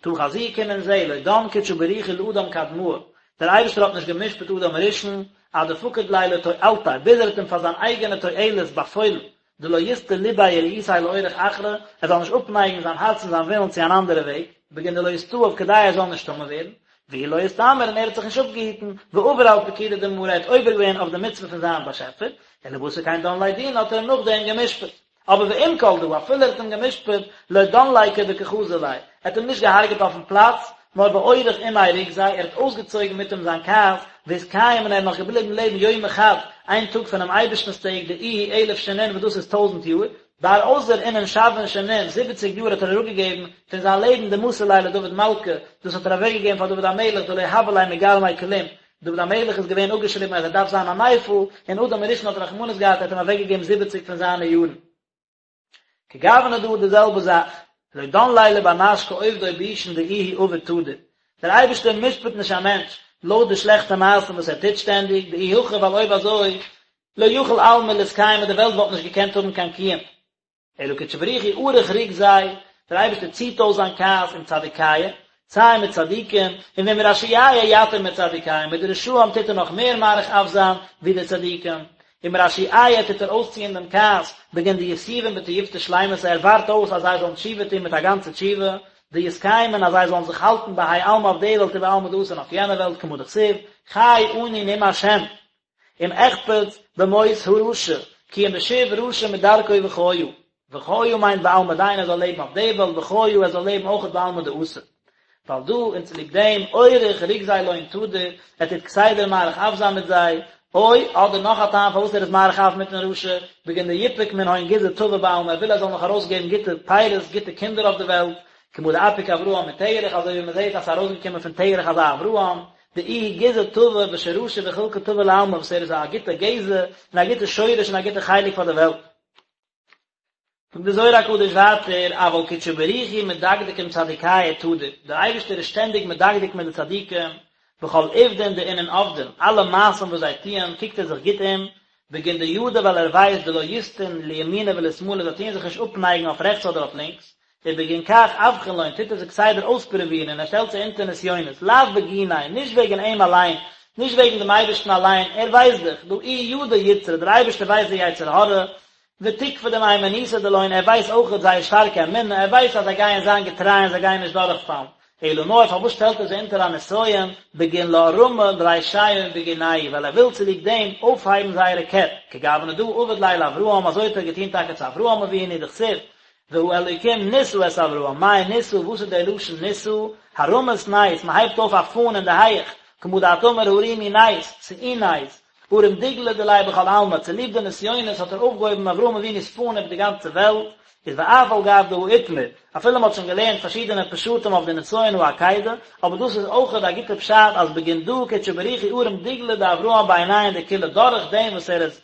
תא חזי קום און זע, לא דן קודשא בריך הוא לאדם קדמאה, דער אייבערשטער האט נישט גע'משפט אדם הראשון, עד דפקיד ליה לתועלתיה, ביז ער האט אים פאר זיין אייגענע תועלת באפוילן, דלא יסטי לביה ורעותיה לאורח אחרא, ער זאל נישט אפנייגן זיין הארץ און זיין ווילן צו אן אנדערע וועג, בגין דלא יסתאב כדי ער זאל נישט טמא ווערן, ואיהו לא אסתמר און ער האט זיך נישט אפגעהיטן, ועבר על פקודא דמאריה ער האט עובר געווען אויף די מצוה פון זיין באשעפער, ולבתר כן דן ליה דינא האט ער אים נאכדעם גע'משפט. אבער ועם כל דא, אפילו ער האט אים גע'משפט, לא דן ליה כדקא חזי ליה, ער האט אים נישט געהארגעט אויפן פלאץ, נאר ואוריך עמיה רוגזיה, ער האט אויסגעצויגן מיט אים זיין כעס, ואתקיים און ער איז נאך געבליבן לעבן יומא חד, איין טאג פונעם אייבערשטנ'ס טעג, דאיהו אלף שנין וואס דאס איז טויזנט יאר, בר אזיל אינון שבעין שנין, זיבעציג יאר האט ער אראפגעגעבן פון זיין לעבן דמסר ליה לדוד מלכא, דאס האט ער אוועקגעגעבן פאר דוד המלך דלא הוה ליה מגרמיה כלום, דוד המלך איז געווען אפגעשריבן אז ער דארף זיין א נפל, און אדם הראשון האט רחמנות געהאט ער האט אים אוועקגעגעבן זיבעציג פון זיינע יארן. כגוונא דא די זעלבע זאך, לא דן ליה לבר נש כעובדוי בישין דאיהו עביד תדיר, דער אייבערשטער משפט נישט א מענטש לויט די שלעכטע מעשים וואס ער טוט שטענדיג, דאי הכי ווייל אויב אזוי לא יכיל עלמא לאתקיימא די וועלט וואלט נישט געקענט האבן קיין קיום. אלא קודשא בריך הוא אריך רוגזיה, דער אייבערשטער ציט אויס זיין כעס עם צדיקיא, סיי מיט צדיקים, און ועם רשיעיא יתיר מצדיקיא, מיט די רשעים טוט ער נאך מער מאריך אף זיין ווי די צדיקים, עם רשיעיא טוט ער אויסציען דעם כעס, בגין דיתובון בתיובתא שלימתא, ער ווארט אויס אז זיי זאלן תשובה טון מיט א גאנצע תשובה, דיתקיימון אז זיי זאלן זיך האלטן בהאי עלמא אויף די וועלט ובעלמא דאתי און אויף יענע וועלט כמה דכתיב, חי אני נאם השם. אם אחפץ במות הרשע, כי אם בשוב רשע מדרכו וחיה. וחיה מיינט בעלמא דין ער זאל לעבן אויף די וועלט וחיה ער זאל לעבן אויכעט בעלמא דאתי. ועל דא און צוליב דעם אוריך רוגזיה לון תדיר, ער טוט כסדר מאריך אף זיין מיט זיי, או, אדער נאך א טעם פארוואס ער איז מאריך אף מיטן רשע, בגין דיפוק מנהון גזעא טבא בעלמא ער וויל ער זאל נאך ארויסגעבן גוטע פירות גוטע קינדער אויף די וועלט, כמה דאפיק אברהם מתרח אזוי ווי מען זעט אז ס'איז ארויסגעקומען פון תרח אזא אברהם, דאיהו גזעא טבא ושרשא וחולקא טבא לעלמא וואס ער איז א גוטע גזע און א גוטע שורש און א גוטע חלק פאר די וועלט. זאגט די זוהר הקדוש ווייטער, אבל קודשא בריך הוא מדקדק עם צדיקיא תדיר, דער אייבערשטער איז שטענדיג מדקדק מיט די צדיקים, בכל עובדין דאינון עבדין, אלע מעשים וואס זיי טוען קוקט ער זיך גוט אום, בגין דידע ווייל ער ווייסט דלא יסטון לימינא ולשמאלא זיי טוען זיך נישט אפנייגן אויף רעכטס אדער אויף לינקס, ובגין כך אבחין לון טוט ער זיי כסדר אויספרובירן און ער שטעלט זיי אונטער נסיונות, לאו בגיניה, נישט וועגן אים אליין, נישט וועגן דעם אייבערשטן אליין, ער ווייסט דאך, דהא איהו ידע יצרא, דער אייבערשטער ווייסט די יצר הרע, ותוקפא דמהימנותא דלון, ער ווייסט אויכעט זייער שטארקע אמונה, ער ווייסט אז זיי גייען זיין געטריי און זיי גייען נישט דורכפאלן, אלא נאר פארוואס שטעלט ער זיי אונטער א נסיון, בגין לארמא רישיהון בגינייהו, ווייל ער וויל צוליב דעם אויפהייבן זייערע קעפ, כגוונא דהא עבד ליה לאברהם, אזוי האט ער געטון טאקע צו אברהם אבינו, דכתיב, והאלוקים נסה את אברהם, מאי נסה, וואס איז דער לשון נסה? הרמת נס, מען הייבט אויף א פאן אין די הייעך, כמה דאת אמר הרימו נס, שאו נס, ארים דגלא דיליה בכל עלמא, צוליב די נסיונות האט ער אויפגעהויבן אברהם אבינו'ס פאן איבער די גאנצע וועלט, איז ואף על גב דהא אתמר, אפילו מען האט שוין געלערנט פארשידענע פשטים אויף די נסיון העקידה, אבער דאס איז אויכעט א גוטע פשט אז בגין דא קודשא בריך הוא ארים דגלא דאברהם בעינייהו דכולא דורך דעם וואס ער איז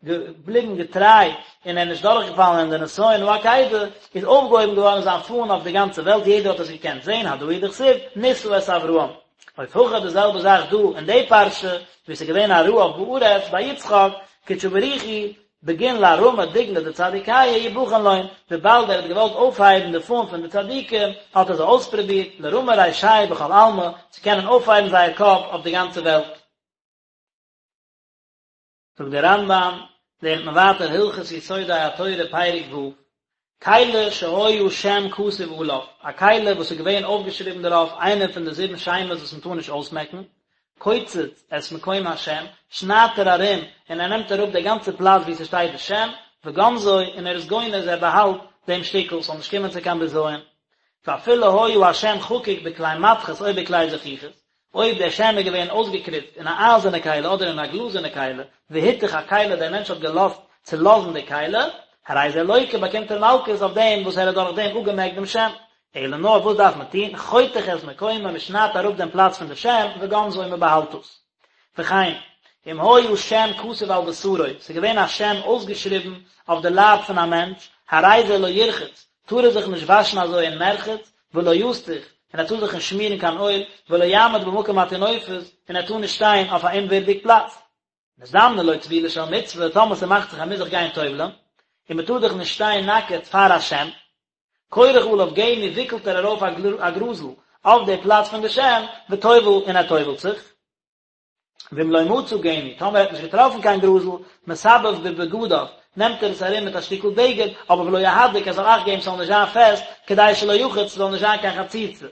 געבליבן געטריי און ער איז נישט דורכגעפאלן אין די נסיון העקידה, איז אויפגעהויבן געווארן זיין פאן אויף די גאנצע וועלט, יעדער האט עס געקענט זען, הדא הוא דכתיב, נסה את אברהם. אוף הכא די זעלבע זאך דא אין די פרשה, ווי עס איז געווען א רעב בארץ ביי יצחק, קודשא בריך הוא, בגין לארמא דגלא דצדיקיא יבחן לון, וויבאלד ער האט געוואלט אויפהייבן די פאן פון די צדיקים, האט ער זיי אויספרובירט, לרמא רישייהו בכל עלמא, צו קענען אויפהייבן זייער קאפ אויף די גאנצע וועלט. זאגט דער רמב"ם, לערנט מען ווייטער הלכות יסודי התורה פרק ו', כלי שהיה שם כתוב עליו, א כלי וואס איז געווען אויפגעשריבן דערויף איינע פון די זיבן שמות וואס מען טאר נישט אויסמעקן, קוצץ את מקום השם, שניידט ער ארום און ער נעמט אראפ די גאנצע פלאץ וואו ס'שטייט די שם, וגונזו, און ער איז גונז, ער באהאלט דעם שטיקל, ס'זאל נישט קומען צו קיין בזיון. ואפילו היה השם חקוק בכלי מתכות או בכלי זכוכית, אויב דער שם איז געווען אויסגעקריצט אין א אייזערנע כלי אדער אין א גלאזערנע כלי, והתיך הכלי, דער מענטש האט געלאזט צולאזן די כלי, הרי זה לוקה באקומט ער מלקות אויף דעם וואס ער האט דורך דעם אפגעמעקט דעם שם. אלא נאר וואס דארף מען טון, חותך את מקומו, מען שניידט אראפ דעם פלאץ פון די שם, וגונזו און מען באהאלט עס. וכן, אם היה שם כתוב על בשרו, ס'איז געווען א שם אויסגעשריבן אויף די לייב פון א מענטש, הרי זה לא ירחץ, טאר ער זיך נישט וואשן אזוי אין מרחץ, ולא יסוך, און ער טאר זיך נישט שמירן קיין אויל, ולא יעמוד במקום הטינופת, און ער טאר נישט שטיין אויף א אומווירדיג פלאץ. נזדמנה לו טבילה של מצוה, טאמער ס'מאכט זיך ער מוז זיך גיין טובל'ן, און מ'טאר דאך נישט שטיין נאקעט פאר א שם, כורך עליו גמי וויקלט ער ארויף א גראזל אויף די פלאץ פון די שם, וטובל און ער טובל'ט זיך. ואם לא מצא גמי, טאמער ער האט נישט געטראפן קיין גראזל, מסבב בבגדיו, נעמט ער עס ארום מיט א שטיקל בגד, אבער ולא יהדק, ער זאל אכט געבן ס'זאל נישט זיין פעסט, כדי שלא יחוץ, ס'זאל נישט זיין קיין חציצה.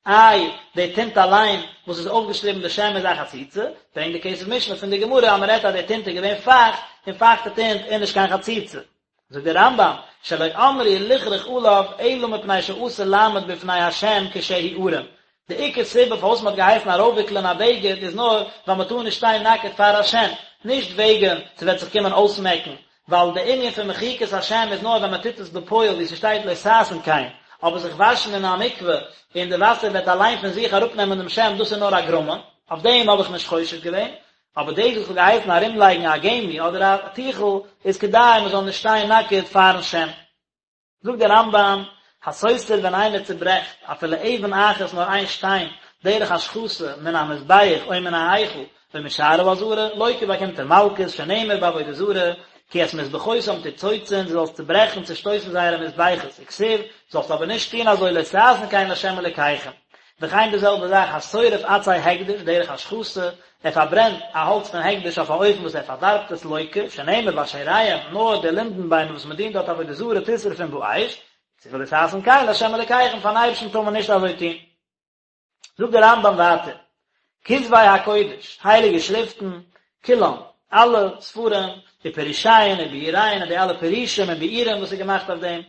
איי, די טינט אליין וואס איז אויפגעשריבן די שם איז א חציצה? ברענגט די כסף משנה פון די גמרא אז מ'רעדט אז די טינט איז געווען פייכט, און פייכטע טינט איז נישט קיין חציצה. זאגט דער רמב"ם, שלא אמרו לכרוך עליו אלא מפני שאסור לעמוד בפני השם כשהוא ערום, די עיקר סיבה פארוואס מען האט געהייסן ארויפוויקלען א בגד איז נאר ווייל מען טאר נישט שטיין נאקעט פאר השם, נישט וועגן ס'וועט זיך קומען אויסמעקן, ווייל די ענין פון מחיקת השם איז נאר ווען מען טוט עס בפועל ווי ס'שטייט לא תעשון כן, אבער זיך וואשן אין א מקווה און די וואסער וועט אליין פון זיך אראפנעמען דעם שם דאס איז נאר א גרמא, אויף דעם האב איך נישט חושש געווען, אבער דאס וואס כ'האב געהייסן ארומלייגן א גמי אדער א טיכל איז כדי מען זאל נישט שטיין נאקעט פארן שם. זאגט דער רמב"ם, הסותר ווען איינער צוברעכט אפילו אבן אחת נאר איין שטיין דרך השחתה מן המזבח או מן ההיכל או משער העזרה, לוקה באקומט ער מלקות, שנאמר בעבודה זרה, כי את מזבחותם תצוצון, דו זאלסט צוברעכן, צושטויסן זייערע מזבחות, וכתיב, זאלסט אבער נישט טון אזוי לא תעשון כן לה' אלוקיכם. וכן די זעלבע זאך השורף עצי הקדש דרך השחתה, ער פארברענט א האלץ פון הקדש אויף א אופן וואס ער פארדארבט עס לוקה, שנאמר באשריהם, נאר די לינדן ביימער וואס מען דינט דארט עבודה זרה תשרפון באש, וכתיב ולא תעשון כן לה' אלוקיכם, פארן אייבערשטן טאר מען נישט אזוי טון. זאגט דער רמב"ם ווייטער, כתבי הקודש, הייליגע שריפטן, כולם, אלע ספרים, ופירושיהן וביאוריהן און די אלע פירושים און ביאורים וואס איז געמאכט אויף דעם,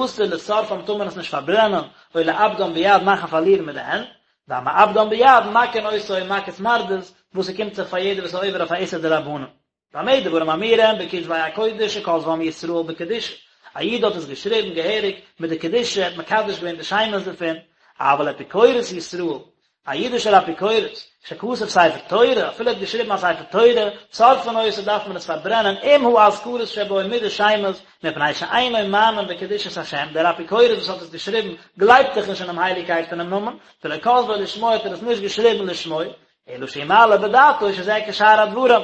אסור לשורפם טאר מען עס נישט פארברענען, או לאבדם ביד מאכן פארלירן מיט די הענט, והמאבדם ביד מכין אותו מכת מרדות, וואס ס'קומט זיך פאר יעדער וואס איז עובר אויף א איסור דרבנן. במה דברים אמורים בכתבי הקודש שכתבם ישראל בקדושה, א איד האט עס געשריבן געהעריג מיט די קדושה, ער האט מקדש געווען די שמות דערפון, אבל אפיקורס ישראל, א אידישער אפיקורס, שכתב ספר תורה, אפילו ער האט געשריבן א ספר תורה, שורפין אותו דארף מען עס פארברענען עם האזכרות שבו מיט די שמות, מפני שאינו מאמין בקדושת השם, דער אפיקורס וואס האט עס געשריבן גלייבט דאך נישט אינעם הייליגקייט פונעם נאמען, ולא כתבו לשמו האט ער עס נישט געשריבן לשמו, אלא שהוא מעלה בדעתו שזה כשאר הדברים,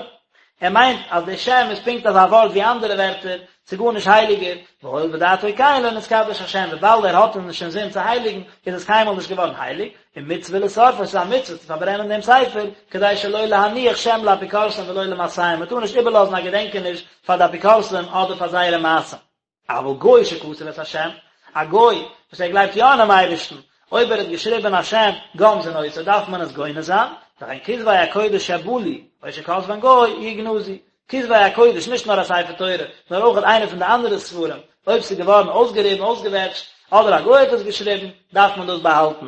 ער מיינט אז די שם איז פונקט אזא ווארט ווי אנדערע ווערטער, ס'איז גארנישט הייליגער, והואיל ודעתו כן לא נתקדש השם, וויבאלד ער האט נישט אינזין צו הייליגן, איז עס קיינמאל נישט געווארן הייליג, און מצוה לשורפו, ס'איז א מצוה צו פארברענען דעם ספר, כדי שלא להניח שם לאפיקורסים ולא למעשיהם, מ'טאר נישט איבערלאזן א געדענקעניש פאר די אפיקורסים אדער פאר זייערע מעשים. אבל גוי שכתב את השם, א גוי וואס ער גלייבט יא אינעם אייבערשטן, אויב ער האט געשריבען א שם גונזין אותו דארף מען עס גונז זיין, וכן כתבי הקודש שבלו, או שכתבן גוי, יגנזו. כתבי הקודש, נישט נאר א ספר תורה, נאר אויך איינע פון די אנדערע ספרים, אויב ס'איז געווארן אויסגעריבן, אויסגעוועטשט, אדער א גוי האט עס געשריבן, דארף מען דאס באהאלטן.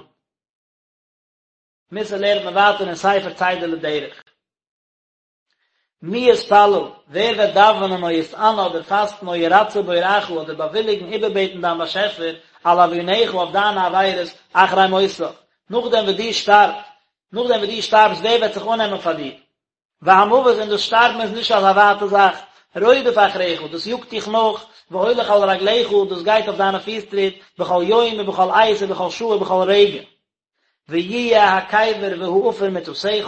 מוסר לערנט מען ווייטער אין ספר צידה לדרך. מי יתפלל, ווער וועט דאווענען או יתענה אדער פאסטן או ירצה בוראך אדער באוויליגן איבערבעטן דיין באשעפער על עוונך אויף דיינע עבירות אחרי מותך, נאכדעם וואס דו שטארבט, נאכדעם וואס דו שטארבסט ווער וועט זיך אננעמען פאר דיר? והמוות און דאס שטארבן איז נישט אזא ווייטע זאך, רודף אחריך, דאס יאגט דיך נאך, והולך על רגליך, דאס גייט אויף דיינע פיס טריט, בכל יום ובכל עת ובכל שעה ובכל רגע. ויהיה הקבר והעפר מטתך,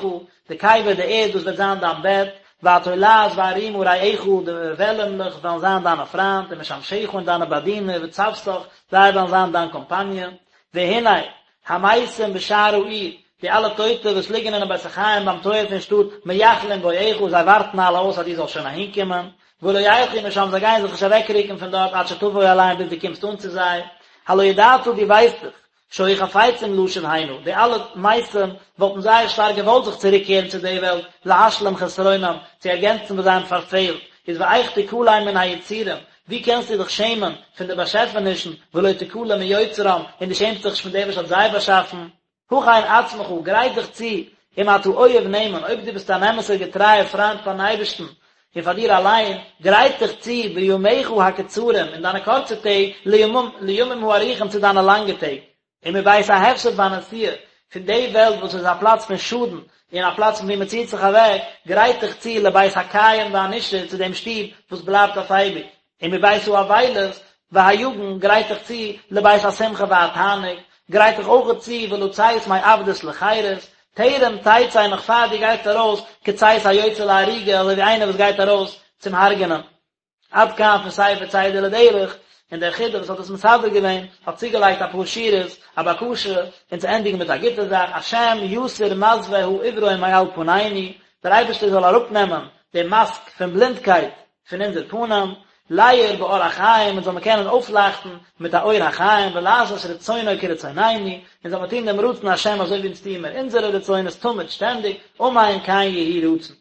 די קבר די ערד דאס וועט זיין דיין בעט, והתולעת והרימה רעיך, די וועלעמלעך וועלן זיין דיינע פריינט, ומשמשיך און דיינע באדינער, וצוותך, זיי וועלן זיין דיין קאמפאניע. והנה, המתים בשער העיר, די אלע טויטע וואס ליגן אינעם בית החיים ביים טויער פון שטאט, מייחלים בואך, זיי ווארטן אלע אויס אז דו זאלסט שוין אהינקומען, ולא ילכו משם, זיי גייען זיך נישט אוועקרוקן פון דארט עד שתבוא אליהם ביז דו קומסט אן צו זיי. הלא ידעת, דו ווייסט דאך, שהיו חפצים לשוב הנה, די אלע מתים וואלטן זייער שטארק געוואלט זיך צוריקקערן צו די וועלט, להשלים חסרונם, צו ערגענצן וואס זיי האבן פארפעלט, איז ואיך תכלם מן היצורים, ווי קענסטו דיך שעמען פון די באשעפענישן, ולא תכלם מיוצרם, און דו שעמסט זיך נישט פון דעם וואס האט זיי באשאפן? הכן עצמך, גרייט דיך צו, אם אתה אוהב נאמן, אויב דו ביסט אן אמת'ער געטרייער פריינט פאר'ן אייבערשטן, און פאר דיר אליין, גרייט דיך צו בימיך הקצרים, אין דיינע קורצע טעג, לימים הארוכים צו דיינע לאנגע טעג. ומבית ההפסד והנסיעה, פון די וועלט וואס איז א פלאץ פון שאדן, און א פלאץ פון וואו מען ציט זיך אוועק, גרייט דיך צו לבית הקיים והנשאר, צו דעם שטוב וואס בלייבט אויף אייביג. ומבית האבילות והיגון, גרייט דיך צו לבית השמחה והתענוג, גרייט דיך אויכעט צו ולצאת מעבדות לחירות, טרם תצא נאך פאר דו גייסט ארויס כצאת היוצא להריגה אזוי ווי איינער וואס גייט ארויס צום הרג'נען. עד כאן פון ספר צידה לדרך, און דער חידא וואס האט עס מסדר געווען האט צוגעלייגט אפאר שורות, א בקשה, און צו ענדיגן מיט א גוטע זאך, השם יסיר מסווה העיוורון מעל פנינו, דער אייבערשטער זאל אראפנעמען די מאסק פון בלינדקייט פון אונזער פנים, להאיר באור החיים, אונז זאל מען קענען אויפלייכטן מיט א אור החיים, ולעשות רצונו כרצונינו, אונז זאל מען טון דעם רצון השם אזוי ווי אונז טוען מיר אונזערע רצונות תמיד שטענדיג, אמן כן יהי רצון.